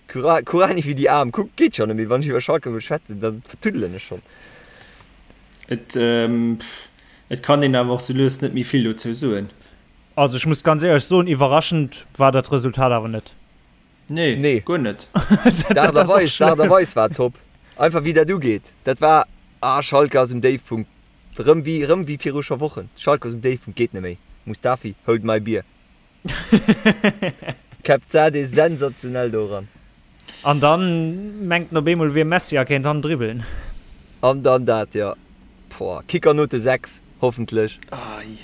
[SPEAKER 5] Kuranyi für die Aarm. Kuck, geet schonn net méi. Wann ech iwwer Schalke wëll schwätzen, da vertuddelen ech schonn.
[SPEAKER 6] Et, et kann een awer och sou lues net méi vill dozou soen.
[SPEAKER 7] Also ech muss ganz éierlech soen, iwwerraschend war dat Resultat awer net.
[SPEAKER 6] Nee,
[SPEAKER 5] Nee.
[SPEAKER 6] guer net.
[SPEAKER 5] D'Aart a Weis, d'Aart a Weis war top. Einfach wéi dat ugeet. Dat war, ah, Schalke ass um Déifpunkt. Rëm wéi, rëm wéi viru scho Wochen. Schalke ass um Déifpunkt, geet net méi. Mustafi, hold my beer. Kebzadeh sensationell do eran.
[SPEAKER 7] An dann mengt en op eemol wier Messi a kéint han dribbeln.
[SPEAKER 5] An dann dat, jo. Boah, Kickernote 6, hoffentlech.
[SPEAKER 6] Ei.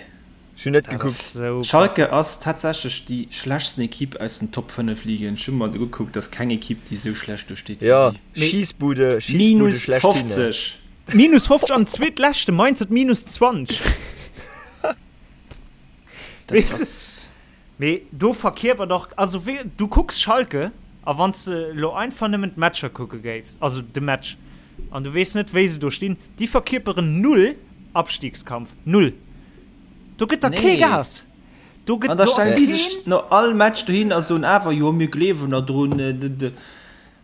[SPEAKER 5] Ech hunn net
[SPEAKER 7] Dat
[SPEAKER 5] gekuckt.
[SPEAKER 7] ass sou
[SPEAKER 6] Schalke ass tatsächlech déi schlechtsten Equipe aus den Top 5 Ligen. Ech hu mer ugekuckt, ass keng Equipe déi sou schlecht do steet wéi
[SPEAKER 5] Jo,
[SPEAKER 6] si.
[SPEAKER 7] Mee
[SPEAKER 5] Schiessbude, Schiessbude
[SPEAKER 6] Minus
[SPEAKER 5] schlechthin.
[SPEAKER 6] 50!
[SPEAKER 7] Minus 50 an zweetleschte Mainz huet minus 20.
[SPEAKER 6] Dat
[SPEAKER 7] Weess de?
[SPEAKER 6] ass.
[SPEAKER 7] Mee do verkierpert och, also wéi, du kucks Schalke a wann s de elo einfach nëmmen d'Matcher kucke géifs, also de Match, an du weess net wéi se do stinn, déi verkierperen null Abstiegskampf, null. Do gëtt der kee
[SPEAKER 6] Nee.
[SPEAKER 7] Gas. Do gëtt,
[SPEAKER 6] An da
[SPEAKER 7] do ass
[SPEAKER 6] stellen déi sech
[SPEAKER 7] keen.
[SPEAKER 6] no all Match dohin a soen awer, jo mir gleewen der drun, d d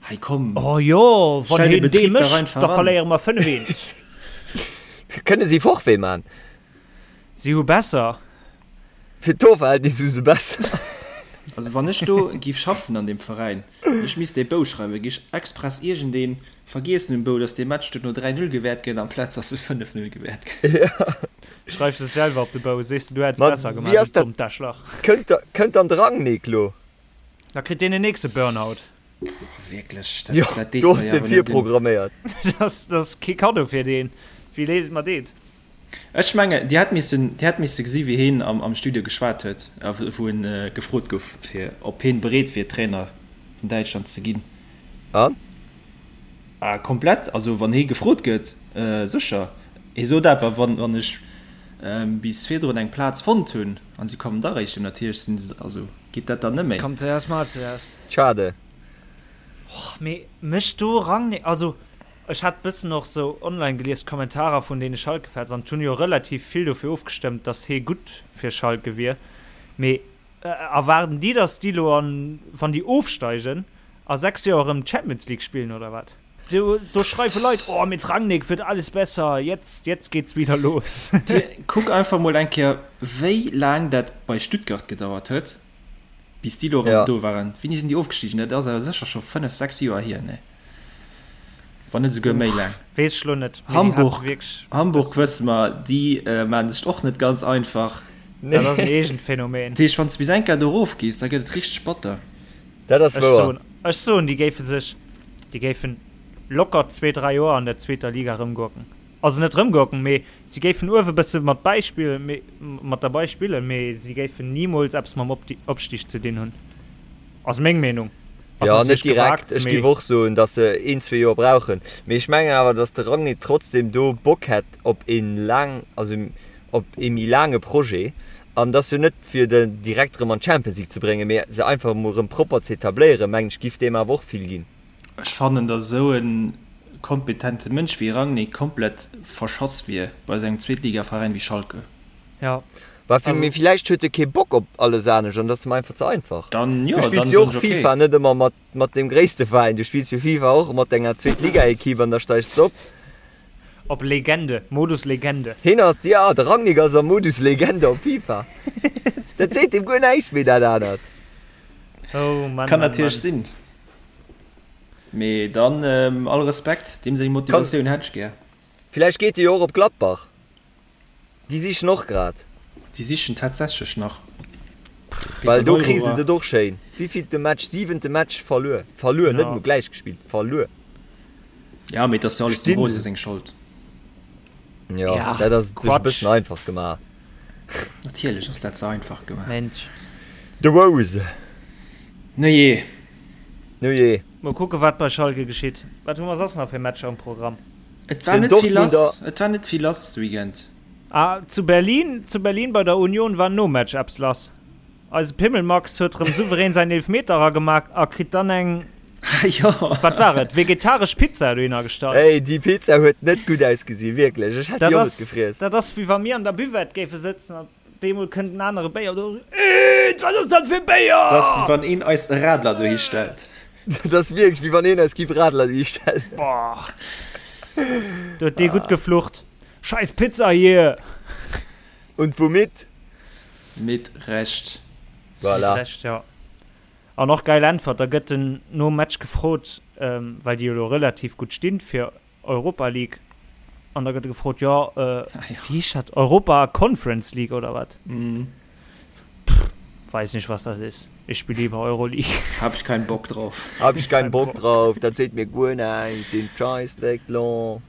[SPEAKER 6] hei komm.
[SPEAKER 7] Oh jo, wann
[SPEAKER 6] Stell de
[SPEAKER 7] heen dee
[SPEAKER 6] Betrib dach
[SPEAKER 7] mécht,
[SPEAKER 6] einfach
[SPEAKER 7] da
[SPEAKER 6] an.
[SPEAKER 7] verléiere mer 5 eent.
[SPEAKER 5] Kënne si Forfait man?
[SPEAKER 7] Si hu besser.
[SPEAKER 5] Fir d'Torverhältnis hu se besser.
[SPEAKER 6] Also wann ech do giff schaffen an deem Veräin, ech misst dee Bou schreiwen, giff ech express iergendeen vergiessen um Bou, dass dee Match duerno 3, 0 gewäert gëtt amplaz dass e 5, 0 gewäert gëtt.
[SPEAKER 7] Schreifs es selwer op de Bou, sees de du hätts
[SPEAKER 5] Ma
[SPEAKER 7] besser
[SPEAKER 5] wéi
[SPEAKER 7] gemaach,
[SPEAKER 5] ass
[SPEAKER 7] du
[SPEAKER 5] dat?
[SPEAKER 7] dommt Daschlach.
[SPEAKER 5] Kënnt da, kënnt dann de Rangnick lo?
[SPEAKER 7] Da kritt deen en nächste Burnout.
[SPEAKER 6] Wierklech, dat,
[SPEAKER 5] Jo,
[SPEAKER 6] dat dees
[SPEAKER 5] do
[SPEAKER 6] der
[SPEAKER 5] ass
[SPEAKER 6] jo
[SPEAKER 5] de
[SPEAKER 6] awer net un.
[SPEAKER 5] virprogramméiert.
[SPEAKER 7] Dat ass kee Kaddo fir deen, wéi leed et mer deet.
[SPEAKER 6] Ech mengen, Dir hätt missen, Dir hätt misse gesi wéi heen am, am Studio geschwat huet, a wou en gefrot gouf, fir ob heen bereet wier, Trainer vun Däitschland ze ginn.
[SPEAKER 5] An?
[SPEAKER 6] Ah, komplett. Also wann hee gefrot gëtt, sécher. Hee sot awer, wann, wann ech bis virdrun eng Plaz fonnt hunn an si kommen da réischt, natierlech sinn se, also geet dat dann net méi.
[SPEAKER 7] Komm zuerst, mal zuerst.
[SPEAKER 5] Schade.
[SPEAKER 7] Och, mee mécht do Rangnick, also Ech hat bëssen och sou online gelies d'Kommentarer vun deene Schalke-Fans an et hunn jo relativ vill dofir ofgestëmmt, dass hee gutt fir Schalke wier. Mee erwaarden déi, dass déi lo an, wann déi ofsteigen, a 6 Joer erëm d'Champions League spillen oder wat? Do, do schreiwe Leit, oh mit Rangnick wird alles besser, jetzt, jetzt geht's wieder los.
[SPEAKER 6] Kuck einfach mol eng Kéier wéi laang dat bei Stuttgart gedauert huet, bis déi lo erëm do waren. Wéini sinn déi ofgestigen? Dat ass awer sécher scho 5, 6 Joer hier, nee? Wann net esouguer méi laang.
[SPEAKER 7] Weess ech lo net.
[SPEAKER 6] Hamburg, Hamburg wësse mer, déi maachen sech och net ganz einfach.
[SPEAKER 7] Dat ass en eegent Phänomen.
[SPEAKER 6] Dat heescht, wann s de bis eng Kéier do erof gees, da gëtt et richteg batter.
[SPEAKER 5] Dat ass wouer.
[SPEAKER 7] Ech soen, déi géife sech, déi géifen locker zwee, dräi Joer an der zweeter Liga erëmgurken. Also net erëmgurken, mee si géifen uewe bësse mat bäispillen, mee mat derbei spillen, mee si géifen nimools eppes mam Opstig ze dinn hunn. Ass meng Meenung.
[SPEAKER 5] Ass Jo, net direkt. Ech géif och soen, datt se een, zwee Joer brauchen. Mee ech mengen awer, datt de Rangnick trotzdem do Bock hätt op ee laang, also op ee méi laange Projet. An et ass jo net fir de direkt erëm an d'Champions League ze bréngen, mee se einfach emol erëm propper ze etabléieren, mengen ech, giff deem awer och vill ginn.
[SPEAKER 6] Ech fannen, datt esou e kompetente Mënsch wéi Rangnick komplett verschass wier bei esou engem Zweetligaveräin wéi Schalke.
[SPEAKER 7] Jo.
[SPEAKER 5] Bah, fir, mee villäicht huet e kee Bock op alles anescht an dat ass em einfach ze einfach.
[SPEAKER 6] Dann, jo,
[SPEAKER 5] Du spills
[SPEAKER 6] dann
[SPEAKER 5] jo
[SPEAKER 6] soen
[SPEAKER 5] och
[SPEAKER 6] ech okay.
[SPEAKER 5] FIFA net ëmmer mat, mat dem gréisste Veräin, du spills jo FIFA och mat denger Zweetligaekipp an da steigs de op.
[SPEAKER 7] Op Legende, Modus Legende.
[SPEAKER 5] Hien ass, jo, de Rangnick ass am Modus Legende op FIFA. Dat seet him guer näischt méi, dat anert.
[SPEAKER 7] Oh Mann,
[SPEAKER 6] Kann
[SPEAKER 7] Mann,
[SPEAKER 6] natierlech
[SPEAKER 7] Mann.
[SPEAKER 6] sinn. Mee dann all Respekt, deem seng Motivatioun hätt ech gär.
[SPEAKER 5] Villäicht geet e jo och op Gladbach. Déi sichen och grad.
[SPEAKER 6] Déi sichen tatsächlech nach.
[SPEAKER 5] Well do kriselt et och schéin. Wéivillte Match? Siwente Match verluer. Verluer, net emol gläich gespillt, verluer.
[SPEAKER 6] Ja, mee et ass jo alles dem Rose seng Schold.
[SPEAKER 5] Jo, dat ass et sech e bëssen einfach gemaach.
[SPEAKER 6] Natierlech ass dat ze einfach gemaach.
[SPEAKER 7] Mensch.
[SPEAKER 5] De Rose.
[SPEAKER 6] Nujee.
[SPEAKER 5] Nujee.
[SPEAKER 7] Mol kucke wat bei Schalke geschitt. Wat hu mer soss nach fir Matcher um Programm?
[SPEAKER 6] Et war net vill lass, et war net vill lass de Weekend.
[SPEAKER 7] Ah, zu Berlin, zu Berlin bei der Union war nom Match eppes lass. Eise Pimmelmax huet rëm souverän säin Eelfmeter eragemaach a kritt dann eng,
[SPEAKER 6] Jo.
[SPEAKER 7] wat war et, vegetaresch Pizza dohinner gestallt.
[SPEAKER 5] Ey, déi Pizza huet net gutt ausgesinn, wierklech. Ech hätt
[SPEAKER 7] Dat
[SPEAKER 5] déi och net
[SPEAKER 7] ass,
[SPEAKER 5] gefriess.
[SPEAKER 7] dat ass wéi wa mir an der Buvette géife sëtzen an Bemol kënnt en anere Béier do. Eet, wat ass dat fir Béier?
[SPEAKER 6] Dat ass wéi wann een eis e Radler dohi stellt.
[SPEAKER 5] Dat ass wierklech wéi wann een eis giff Radler dohi stellen.
[SPEAKER 7] Boah. Do huet dee gutt geflucht. Scheiß Pizza hier!
[SPEAKER 5] Und womit?
[SPEAKER 6] Mit Recht.
[SPEAKER 5] Voilà.
[SPEAKER 7] Mit Recht, ja. An och geil Äntwert, da gëtt en nom Match gefrot, well déi jo elo relativ gutt stinn fir Europa League an da gëtt gefrot jo äh, ah, ja. wie heescht dat Europa Conference League oder wat
[SPEAKER 6] mhm.
[SPEAKER 7] Pff, weiß nicht was das ist ich spiele lieber Euroleague
[SPEAKER 6] hab ich keinen Bock drauf
[SPEAKER 5] hab ich keinen Bock drauf dat seet mir guer näischt den Scheißdreck lo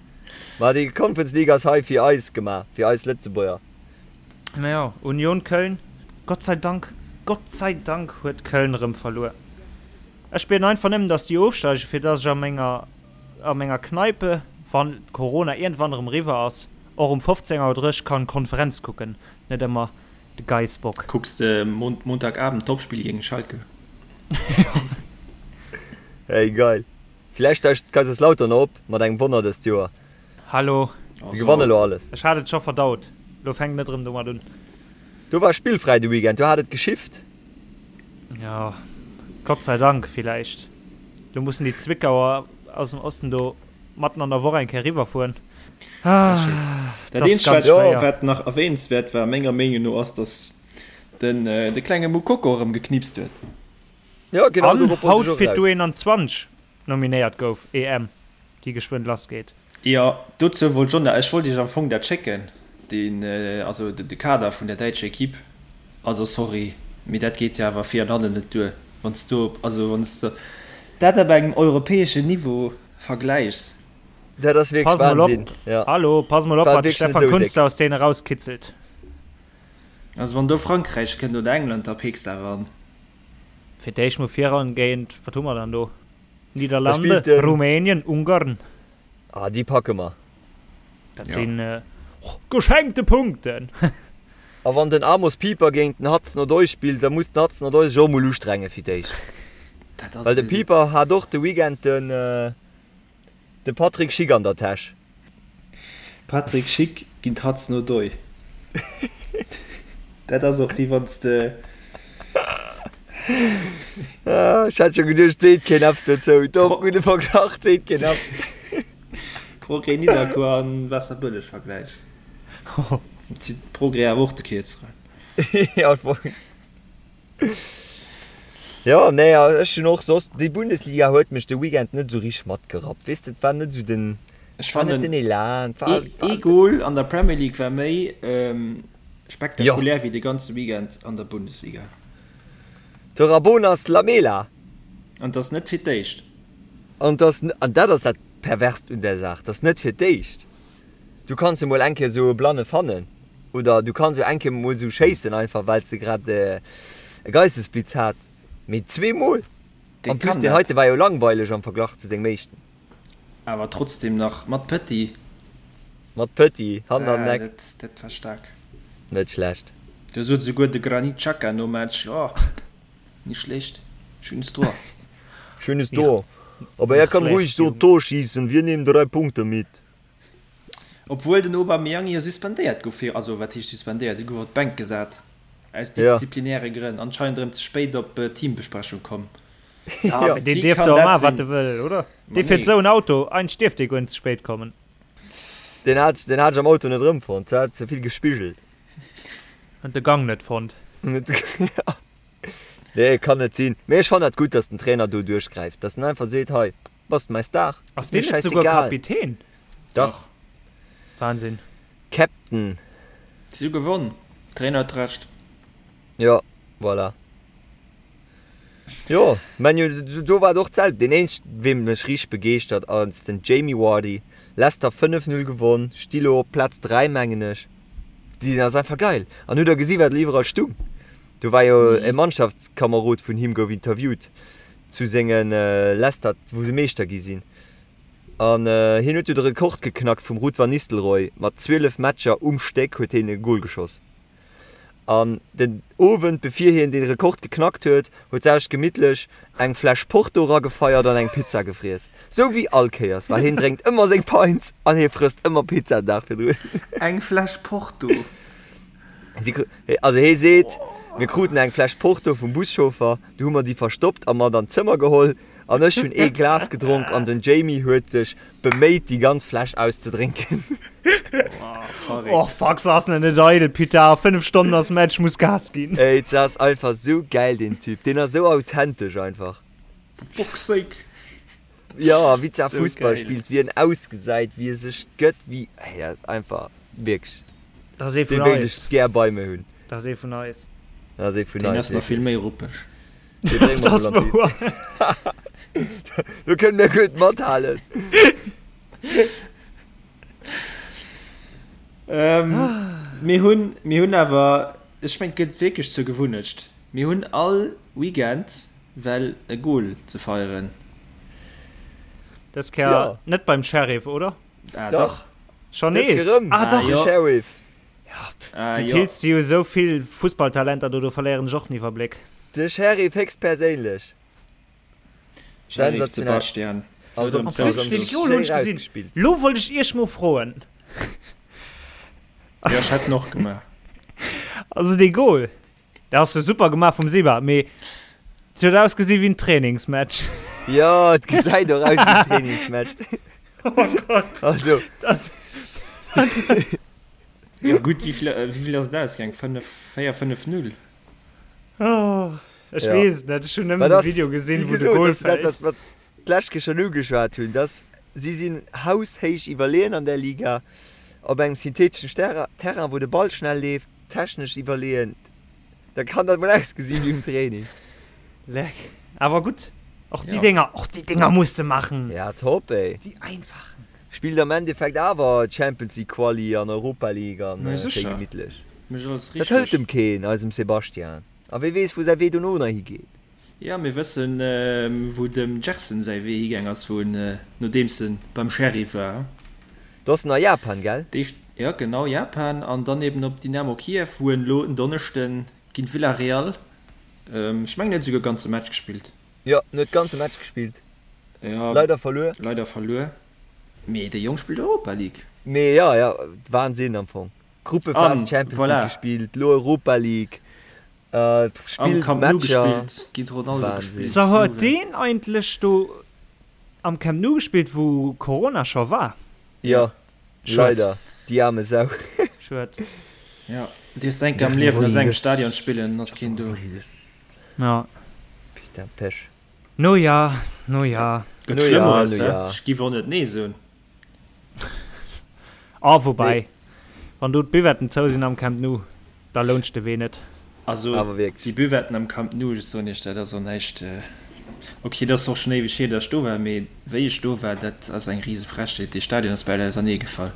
[SPEAKER 5] War déi Conference League ass hei fir eis gemaach fir eis Lëtzebuerger
[SPEAKER 7] Naja Union Köln Gott sei Dank Gott sei Dank huet Köln erëm verluer Ech bieden einfach nëmmen dass déi ofsteigen fir dass ech a menger a menger Kneipe, wann Corona iergendwann erëm eriwwer ass, och um 15 Auer 30 kann Konferenz kucken, net ëmmer de Geissbock.
[SPEAKER 6] Kucks de Montagabend d'Topspill géint Schalke?
[SPEAKER 5] Hey geil. Villäicht steigt Kaiserslautern op mat engem Wonner dëst Joer.
[SPEAKER 7] Hallo.
[SPEAKER 5] Déi gewannen elo alles.
[SPEAKER 7] Ech hat et scho verdaut, lo fänk net erëm domat un.
[SPEAKER 5] Do war spillfräi de Weekend, do hat et geschifft.
[SPEAKER 7] Jo, Gott sei Dank villäicht. Lo mussen déi Zwickauer aus dem Osten do matten an der Woch eng Kéier riwwerfueren.
[SPEAKER 6] Dat
[SPEAKER 7] Dat ass
[SPEAKER 6] eenzegt,
[SPEAKER 7] ganz
[SPEAKER 6] wat,
[SPEAKER 7] schwéier.
[SPEAKER 6] wat nach erwähnenswäert war, menger Meenung no, ass, dass den, de klenge Moukoko erëm geknipst huet.
[SPEAKER 5] Jo, genau
[SPEAKER 7] An
[SPEAKER 5] dorop wollt
[SPEAKER 7] haut
[SPEAKER 5] ech och
[SPEAKER 7] fir
[SPEAKER 5] eraus.
[SPEAKER 7] d'U21 nominéiert gouf, EM, déi geschwënn lassgeet.
[SPEAKER 6] Jo, dozou wollt ech och nach, ech wollt iech am Fong dat schécken, deen, also de Kader vun der däitscher Equipe. Also sorry, mee dat geet jo awer vir an hannen net duer, wann s du, also wann s de dat op engem europäeschen Niveau vergläichs.
[SPEAKER 5] Dat ass wierklech
[SPEAKER 7] Pass mol op,
[SPEAKER 5] Wahnsinn, jo.
[SPEAKER 7] hallo, pass mol op,
[SPEAKER 5] War
[SPEAKER 7] wat de
[SPEAKER 5] wierklech net
[SPEAKER 7] Stefan
[SPEAKER 5] esou
[SPEAKER 7] Kuntz
[SPEAKER 5] déck.
[SPEAKER 7] aus deene rauskitzelt.
[SPEAKER 6] Also wann do Frankräich kënnt oder England, da peeks de awer an.
[SPEAKER 7] Fir d'éischt mol viran géint, wat hu mer dann do?
[SPEAKER 5] Da
[SPEAKER 7] Niederlande,
[SPEAKER 5] spillt den.
[SPEAKER 7] Rumänien, Ungarn.
[SPEAKER 5] Ah, déi packe mer.
[SPEAKER 7] Dat
[SPEAKER 6] Ja.
[SPEAKER 7] sinn geschenkte Punkten.
[SPEAKER 5] A wann den Amos Pieper géint den Hudson-Odoi spillt, da muss den Hudson-Odoi sech och mol ustrenge fir d'éischt.
[SPEAKER 6] Dat ass
[SPEAKER 5] Well de
[SPEAKER 6] e.
[SPEAKER 5] Pieper hat och de Weekend den de Patrick Schick an der Täsch.
[SPEAKER 6] Patrick Schick géint Hudson-Odoi. Dat ass och wéi wann s de.
[SPEAKER 5] Ech hat scho geduecht, seet keen eppes dozou. Doch, gudde Verglach, seet keen eppes.
[SPEAKER 6] Progrès Nidderkuer an Waasserbëlleg vergläichs. Zitt Progrès awer och de Kierzeren.
[SPEAKER 5] Ja, voll. Jo, nee, ech hunn och soss, déi Bundesliga huet mech de Weekend net esou richteg matgerappt. Weess de, et war net esou den,
[SPEAKER 6] Ech
[SPEAKER 5] war net
[SPEAKER 6] fannen
[SPEAKER 5] den Elan, et war,
[SPEAKER 6] ee
[SPEAKER 5] war
[SPEAKER 6] ee Goal an der Premier League war méi
[SPEAKER 5] Jo.
[SPEAKER 6] spektakulär wéi de ganze Weekend an der Bundesliga.
[SPEAKER 5] De Rabonas Lamela.
[SPEAKER 6] An 't ass net fir d'éischt.
[SPEAKER 5] An 't ass, an dat ass dat Perverst un där Saach, 't ass net fir d'éischt. Du kanns jo mol eng Kéier esou e Blanne fannen oder du kanns jo eng Kéier mol esou schéissen, einfach well s de grad e Geistesblitz hat, mee zweemol?
[SPEAKER 6] Dee
[SPEAKER 5] En plus
[SPEAKER 6] kann
[SPEAKER 5] deen
[SPEAKER 6] dat.
[SPEAKER 5] heite war jo langweileg am Verglach zu sengem éischten.
[SPEAKER 6] Awer trotzdem nach mat Petit.
[SPEAKER 5] Mat Petit, Hand an
[SPEAKER 6] Ah,
[SPEAKER 5] Neck.
[SPEAKER 6] dat, dat war staark.
[SPEAKER 5] Net schlecht.
[SPEAKER 6] Do sot esouguer de Granit Xhaka nom Match, Oh, nicht schlecht, schönes Tor.
[SPEAKER 5] Schönes Tor. Aber er kann ruhig so Tor schießen, wir nehmen drei Punkte mit.
[SPEAKER 6] Obwuel den Aubameyang jo suspendéiert gouf fir, also wat heescht suspendéiert, e gouf op d'Bänk gesat aus disziplinäre Grënn, anscheinend erëm ze spéit op d'Teambesprechung komm.
[SPEAKER 7] Ja, mee deen dierf do maachen, wat e wëll, oder? Dee fiert esou en Auto, eigentlech dierf dee guer net ze spéit kommen.
[SPEAKER 5] Deen hat, deen hat ech am Auto net erëmfonnt, se hat ze vill gespigelt.
[SPEAKER 7] Huet de Gang net fonnt.
[SPEAKER 5] Nee, kann net sinn. Mee ech fannen dat gutt, dass den Trainer do duerchgräift, dass en einfach seet, hei, bass de mäi Star,
[SPEAKER 7] Ass deen net souguer Kapitän?
[SPEAKER 5] Dach.
[SPEAKER 7] Wahnsinn.
[SPEAKER 5] Captain.
[SPEAKER 6] Si hu gewonn, Trainer huet Recht.
[SPEAKER 5] Jo, voilà. Jo, Man U, do war et och d'selwecht. Deen eenzegen, wee mech richteg begeeschtert, ass den Jamie Vardy. Leicester 5, 0 gewonn, sti lo op Plaz 3, mengen ech. Deen ass einfach geil. An hutt der gesi wat iwwerall stung? Do war jo e Mannschaftskamerod vun him gouf interviewt zu senge Leicester, wou se Meeschter gi sinn. An hien huet jo de Rekord geknackt vum Ruud van Nistelrooy, mat 12 Matcher um Stéck huet hien e Gol geschoss. An den Owend bevir hien dee Rekord geknackt huet, huet sech gemittlech eng Fläsch Porto ragefeiert an eng Pizza gefriess. Sou wéi all Kéiers, well hien drénkt ëmmer seng Pints an hie frësst ëmmer Pizza den Dag virdrun.
[SPEAKER 6] Eng Fläsch Porto?
[SPEAKER 5] Si, also hie seet, mir kruten eng Fläsch Porto vum Buschauffer, du hu mer déi verstoppt a mat an d'Zëmmer geholl an ech hunn ee Glas gedronk an den Jamie huet sech Beméit déi ganz Fläsch auszedrénken.
[SPEAKER 7] Och fuck, se ass nach net eidel, putain, a 5 Stonnen ass Match, muss Gas ginn.
[SPEAKER 5] Ey, se ass einfach sou gäil deen Typ, deen ass sou authentesch einfach.
[SPEAKER 6] For fuck's sake.
[SPEAKER 5] Jo, wéi ze Fussball spillt, wéi en ausgesäit, wéi e sech gëtt, wéi, ey, dat ass einfach wierklech,
[SPEAKER 7] Dat ass ee
[SPEAKER 5] dee
[SPEAKER 7] vun
[SPEAKER 5] wéilt
[SPEAKER 7] eis.
[SPEAKER 5] ech gär bei mir hunn.
[SPEAKER 7] Dat ass ee vun eis.
[SPEAKER 5] Dat ass ee vun
[SPEAKER 6] Deen
[SPEAKER 5] eis,
[SPEAKER 6] ass nach vill
[SPEAKER 5] wierklech.
[SPEAKER 6] méi ruppeg.
[SPEAKER 5] Dee brénge mer
[SPEAKER 7] Dat
[SPEAKER 5] mol an
[SPEAKER 7] wouer.
[SPEAKER 5] Do kënne mir gutt mathalen.
[SPEAKER 6] Ähm, mir hunn, mir hunn awer, ech mengen, et gëtt wierklech zur Gewunnecht, mir hunn all Weekend well e Goal ze feieren.
[SPEAKER 7] Dës Kéier
[SPEAKER 5] Ja.
[SPEAKER 7] net beim Sheriff, oder?
[SPEAKER 6] Ah,
[SPEAKER 5] Dach.
[SPEAKER 6] dach.
[SPEAKER 7] Schon
[SPEAKER 5] Dës
[SPEAKER 7] nees?
[SPEAKER 5] Kéier erëm.
[SPEAKER 7] Ah, dach.
[SPEAKER 6] Ah,
[SPEAKER 5] De
[SPEAKER 6] jo.
[SPEAKER 5] Sheriff.
[SPEAKER 6] Ah,
[SPEAKER 7] Du
[SPEAKER 6] jo.
[SPEAKER 7] tills déi jo esou vill Fussballtalenter do, do verléieren ech och den Iwwerbléck.
[SPEAKER 5] De Sheriff héchstperséinlech.
[SPEAKER 6] Sheriff
[SPEAKER 5] Sensationell.
[SPEAKER 6] Sebastian.
[SPEAKER 5] Also,
[SPEAKER 6] Oder
[SPEAKER 7] En plus, den Goal hunn ech gesinn.
[SPEAKER 5] Rausgespillt.
[SPEAKER 7] Lo wollt ech iech mol froen.
[SPEAKER 6] Ja, ech hätt en och gemaach.
[SPEAKER 7] Also dee Goal, dee ass jo super gemaach vum Seba, mee et huet ausgesi wéi en Trainingsmatch.
[SPEAKER 5] Jo, et gesäit och aus wéi en Trainingsmatch.
[SPEAKER 7] Oh Gott.
[SPEAKER 5] Also.
[SPEAKER 7] Dat,
[SPEAKER 6] Jo gutt, wéi vill, wéi vill ass et ausgaang? 5, 4, 5, 0?
[SPEAKER 7] oh, ech
[SPEAKER 5] Ja.
[SPEAKER 7] weess et net, ech hunn nëmmen
[SPEAKER 5] Wat
[SPEAKER 7] de
[SPEAKER 5] ass,
[SPEAKER 7] Video gesinn,
[SPEAKER 5] wéi
[SPEAKER 7] wou de
[SPEAKER 5] gesot,
[SPEAKER 7] Goal
[SPEAKER 5] dat ass dat,
[SPEAKER 7] fält.
[SPEAKER 5] wat mer d'lescht Kéier schonn ugeschwat hunn, dass si sinn haushéich iwwerleeën an där Liga, op engem syntheteschen Sterra, Terrain, wou de Ball schnell leeft, technesch iwwerleeën, da kann dat mol ausgesinn wéi um Training.
[SPEAKER 7] Leck. Awer gutt, och déi
[SPEAKER 6] Ja.
[SPEAKER 7] Dénger, och déi Dénger muss de maachen.
[SPEAKER 5] Ja, top, ey.
[SPEAKER 7] Déi einfachen.
[SPEAKER 5] Spillt am Endeffekt awer Champions League Quali an Europa League an
[SPEAKER 6] Mä
[SPEAKER 5] schéi
[SPEAKER 6] sécher.
[SPEAKER 5] gemittlech.
[SPEAKER 6] Mécht alles
[SPEAKER 5] Dat hëlt
[SPEAKER 6] richteg.
[SPEAKER 5] em keen, eisem Sebastian. A wee weess wou säi Wee dono nach higeet.
[SPEAKER 6] Jo, mir wëssen wou dem Gerson säi Wee higaang ass, wou en, nodeems en beim Sheriff war.
[SPEAKER 5] Do ass en a Japan, gell?
[SPEAKER 6] D'éischt, jo genau, Japan an dann eben op Dynamo Kiew, wou en elo en Donneschden géint Villarreal, ech mengen en huet esouguer ganze Match gespillt.
[SPEAKER 5] Jo, en huet ganze Match gespillt.
[SPEAKER 6] Jo,
[SPEAKER 5] Leider verluer.
[SPEAKER 6] Leider verluer. Mee de Jong spillt Europa League.
[SPEAKER 5] Mee jo, jo, Wahnsinn am Fong. Gruppephase
[SPEAKER 6] An,
[SPEAKER 5] Champions
[SPEAKER 6] voilà.
[SPEAKER 5] League gespillt, lo Europa League,
[SPEAKER 6] Am
[SPEAKER 5] spillt
[SPEAKER 6] Camp Nou
[SPEAKER 5] Matcher.
[SPEAKER 6] gespillt, géint Ronaldo
[SPEAKER 5] Wahnsinn.
[SPEAKER 6] gespillt.
[SPEAKER 7] So huet
[SPEAKER 6] Juve.
[SPEAKER 7] deen eigentlech do am Camp Nou gespillt wou Corona scho war?
[SPEAKER 5] Jo,
[SPEAKER 7] Schued.
[SPEAKER 5] leider, déi aarme Sau.
[SPEAKER 7] Schued.
[SPEAKER 6] Ja, dierfs enk am Liewen a sengem Stadion spillen, ass keen do.
[SPEAKER 7] Ja.
[SPEAKER 5] Putain, Pech.
[SPEAKER 7] No ja, no ja.
[SPEAKER 6] Gëtt
[SPEAKER 5] No ja,
[SPEAKER 6] Schlëmmeres,
[SPEAKER 5] no
[SPEAKER 6] hä?
[SPEAKER 5] ja.
[SPEAKER 6] Ech giff och net nee soen.
[SPEAKER 7] Ah, woubäi, wann do d'Buvetten zou sinn am Camp Nou, da lount sech de Wee net.
[SPEAKER 6] Also,
[SPEAKER 5] Awer wierklech.
[SPEAKER 6] déi Buvetten am Camp Nou, ech soen iech, dat ass och näischt. Ok, dat ass och schonn éiweg hier, datt ech do war, mee wéi ech do war, dat ass eng rise Frechheet. Dee Stadion ass bal auserneegefall.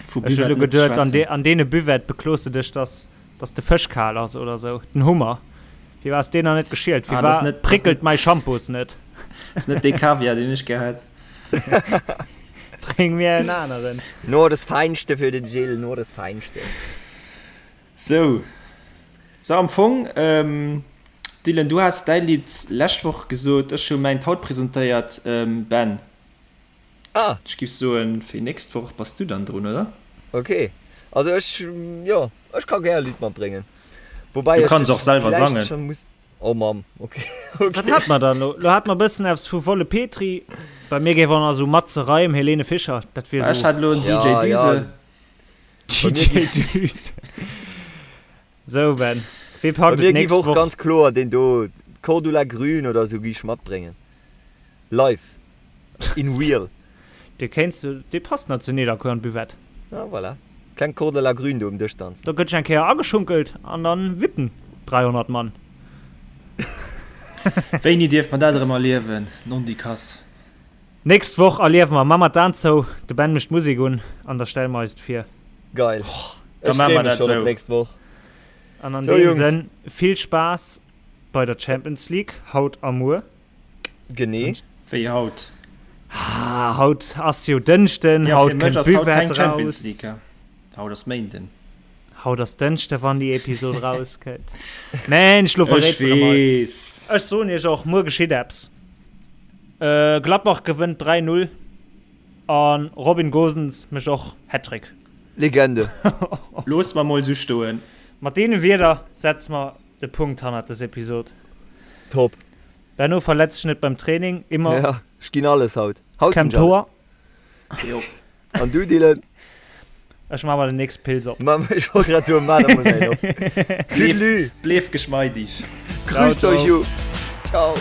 [SPEAKER 6] Vu
[SPEAKER 7] Ech hunn elo
[SPEAKER 6] Buvetten net ze
[SPEAKER 7] geduet, an
[SPEAKER 6] schwätzen.
[SPEAKER 7] an deene Buvette beklos de dech, dass Dass de Fësch kal ass oder sou. Den Hummer. Firwat ass deen nach net geschielt?
[SPEAKER 6] Ah, das
[SPEAKER 7] Firwat
[SPEAKER 6] net, das
[SPEAKER 7] prickelt
[SPEAKER 6] net,
[SPEAKER 7] mäi Shampoos net?
[SPEAKER 6] das net dee Kaviar, deen ech gär hätt.
[SPEAKER 7] Bréng mir en aneren.
[SPEAKER 5] Nur das Feinste für den Gilles, nur das Feinste.
[SPEAKER 6] Sou. So, am Fong, ähm, Dylan, du has däi Lidd lescht Woch gesot, ech hu mäint haut presentéiert. Ähm, Ben.
[SPEAKER 5] Ah.
[SPEAKER 6] Ech giff soen, fir nächst Woch bass du dann drun, oder?
[SPEAKER 5] Ok, also ech, jo, ech ka gär e Lidd matbréngen. Woubäi
[SPEAKER 6] Du
[SPEAKER 5] ech
[SPEAKER 6] kanns
[SPEAKER 5] dech
[SPEAKER 6] och selwer
[SPEAKER 5] villäicht
[SPEAKER 6] sangen.
[SPEAKER 5] schon muss. Oh Mamm, ok,
[SPEAKER 7] Wat
[SPEAKER 5] ok.
[SPEAKER 7] hat mer dann elo? Lo hat mer e bëssen eppes vu Wolle Petry. Bei mir géif och nach esou Matze Reim, Helene Fischer, dat wier
[SPEAKER 6] Ech
[SPEAKER 7] esou.
[SPEAKER 6] hat elo en DJ
[SPEAKER 5] Ja, ja,
[SPEAKER 6] Düse.
[SPEAKER 5] also bei mir
[SPEAKER 7] DJ
[SPEAKER 5] gi.
[SPEAKER 7] Düse. Sou Ben, wee
[SPEAKER 5] Bei
[SPEAKER 7] packt
[SPEAKER 5] mir
[SPEAKER 7] et
[SPEAKER 5] giff
[SPEAKER 7] nächst
[SPEAKER 5] och
[SPEAKER 7] Woch?
[SPEAKER 5] ganz kloer deen do, Cordula Grün oder esou, gi ech matbréngen. Live. In real.
[SPEAKER 7] Dee kéints du, dee passt nach zu Nidderkuer an d'Buvette.
[SPEAKER 5] Ah voilà. Kleng Cordula Grün do um Dësch danzen.
[SPEAKER 7] Do gëtt sech eng Kéier ageschunkelt an dann wippen 300 Mann.
[SPEAKER 6] Wéini dierf mer dat erëm erliewen, Nondikass?
[SPEAKER 7] Nächst Woch erliewe mer, ma mer d'Aen zou, de Ben mécht d'Musek un an da stelle mer eis et vir.
[SPEAKER 5] Geil.
[SPEAKER 6] Da
[SPEAKER 5] Ech
[SPEAKER 6] maache
[SPEAKER 5] freeë
[SPEAKER 6] mer
[SPEAKER 5] mech
[SPEAKER 6] dat
[SPEAKER 5] schonn op
[SPEAKER 6] sou.
[SPEAKER 5] nächst Woch.
[SPEAKER 7] An an
[SPEAKER 5] Sou
[SPEAKER 7] deem
[SPEAKER 5] Jungs.
[SPEAKER 7] Sënn vill Spaass bei der Champions League haut a muer.
[SPEAKER 5] Genee.
[SPEAKER 6] Wéi haut?
[SPEAKER 7] Ah, haut ass jo Dënschden,
[SPEAKER 6] Ja,
[SPEAKER 7] haut
[SPEAKER 6] fir mech
[SPEAKER 7] kënnt
[SPEAKER 6] ass haut
[SPEAKER 7] d'Buvette
[SPEAKER 6] keng Champions
[SPEAKER 7] raus.
[SPEAKER 6] League. Ja. Haut ass Méinden.
[SPEAKER 7] Haut ass Dënschde wann déi Episod rauskënnt. Mensch, lo
[SPEAKER 6] Ech
[SPEAKER 7] verréits de mol.
[SPEAKER 6] weess.
[SPEAKER 7] Ech soen iech och, muer geschitt eppes. Äh, Gladbach gewënnt 3, 0 an Robin Gosens mécht och Hattrick.
[SPEAKER 5] Legende.
[SPEAKER 6] Looss mer mol sou stoen.
[SPEAKER 7] Mat deene Wierder setze mer de Punkt hannert des Episod.
[SPEAKER 5] Top.
[SPEAKER 7] Benno verletz dech net beim Training, immer.
[SPEAKER 5] Ja, ech ginn alles haut. Haut ginn
[SPEAKER 7] Kem
[SPEAKER 5] ech alles.
[SPEAKER 7] Tor.
[SPEAKER 6] Jo.
[SPEAKER 5] An du Dylan?
[SPEAKER 7] Ech maa mer den nächste Pils op.
[SPEAKER 5] Ma ech wollt grad soen, maa der mol eng op. Tüdelü.
[SPEAKER 6] Bleef geschmeidig.
[SPEAKER 5] Grüßt
[SPEAKER 7] Ciao,
[SPEAKER 5] euch
[SPEAKER 7] ciao.
[SPEAKER 5] Jungs. Ciao.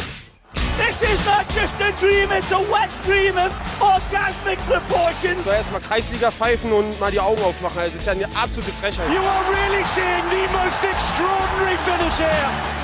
[SPEAKER 1] This is not just a dream, it's a wet dream of orgasmic proportions.
[SPEAKER 2] So erstmal Kreisliga pfeifen und mal die Augen aufmachen. Also, das ist ja eine absolute Frechheit.
[SPEAKER 3] You are really seeing the most extraordinary finish here.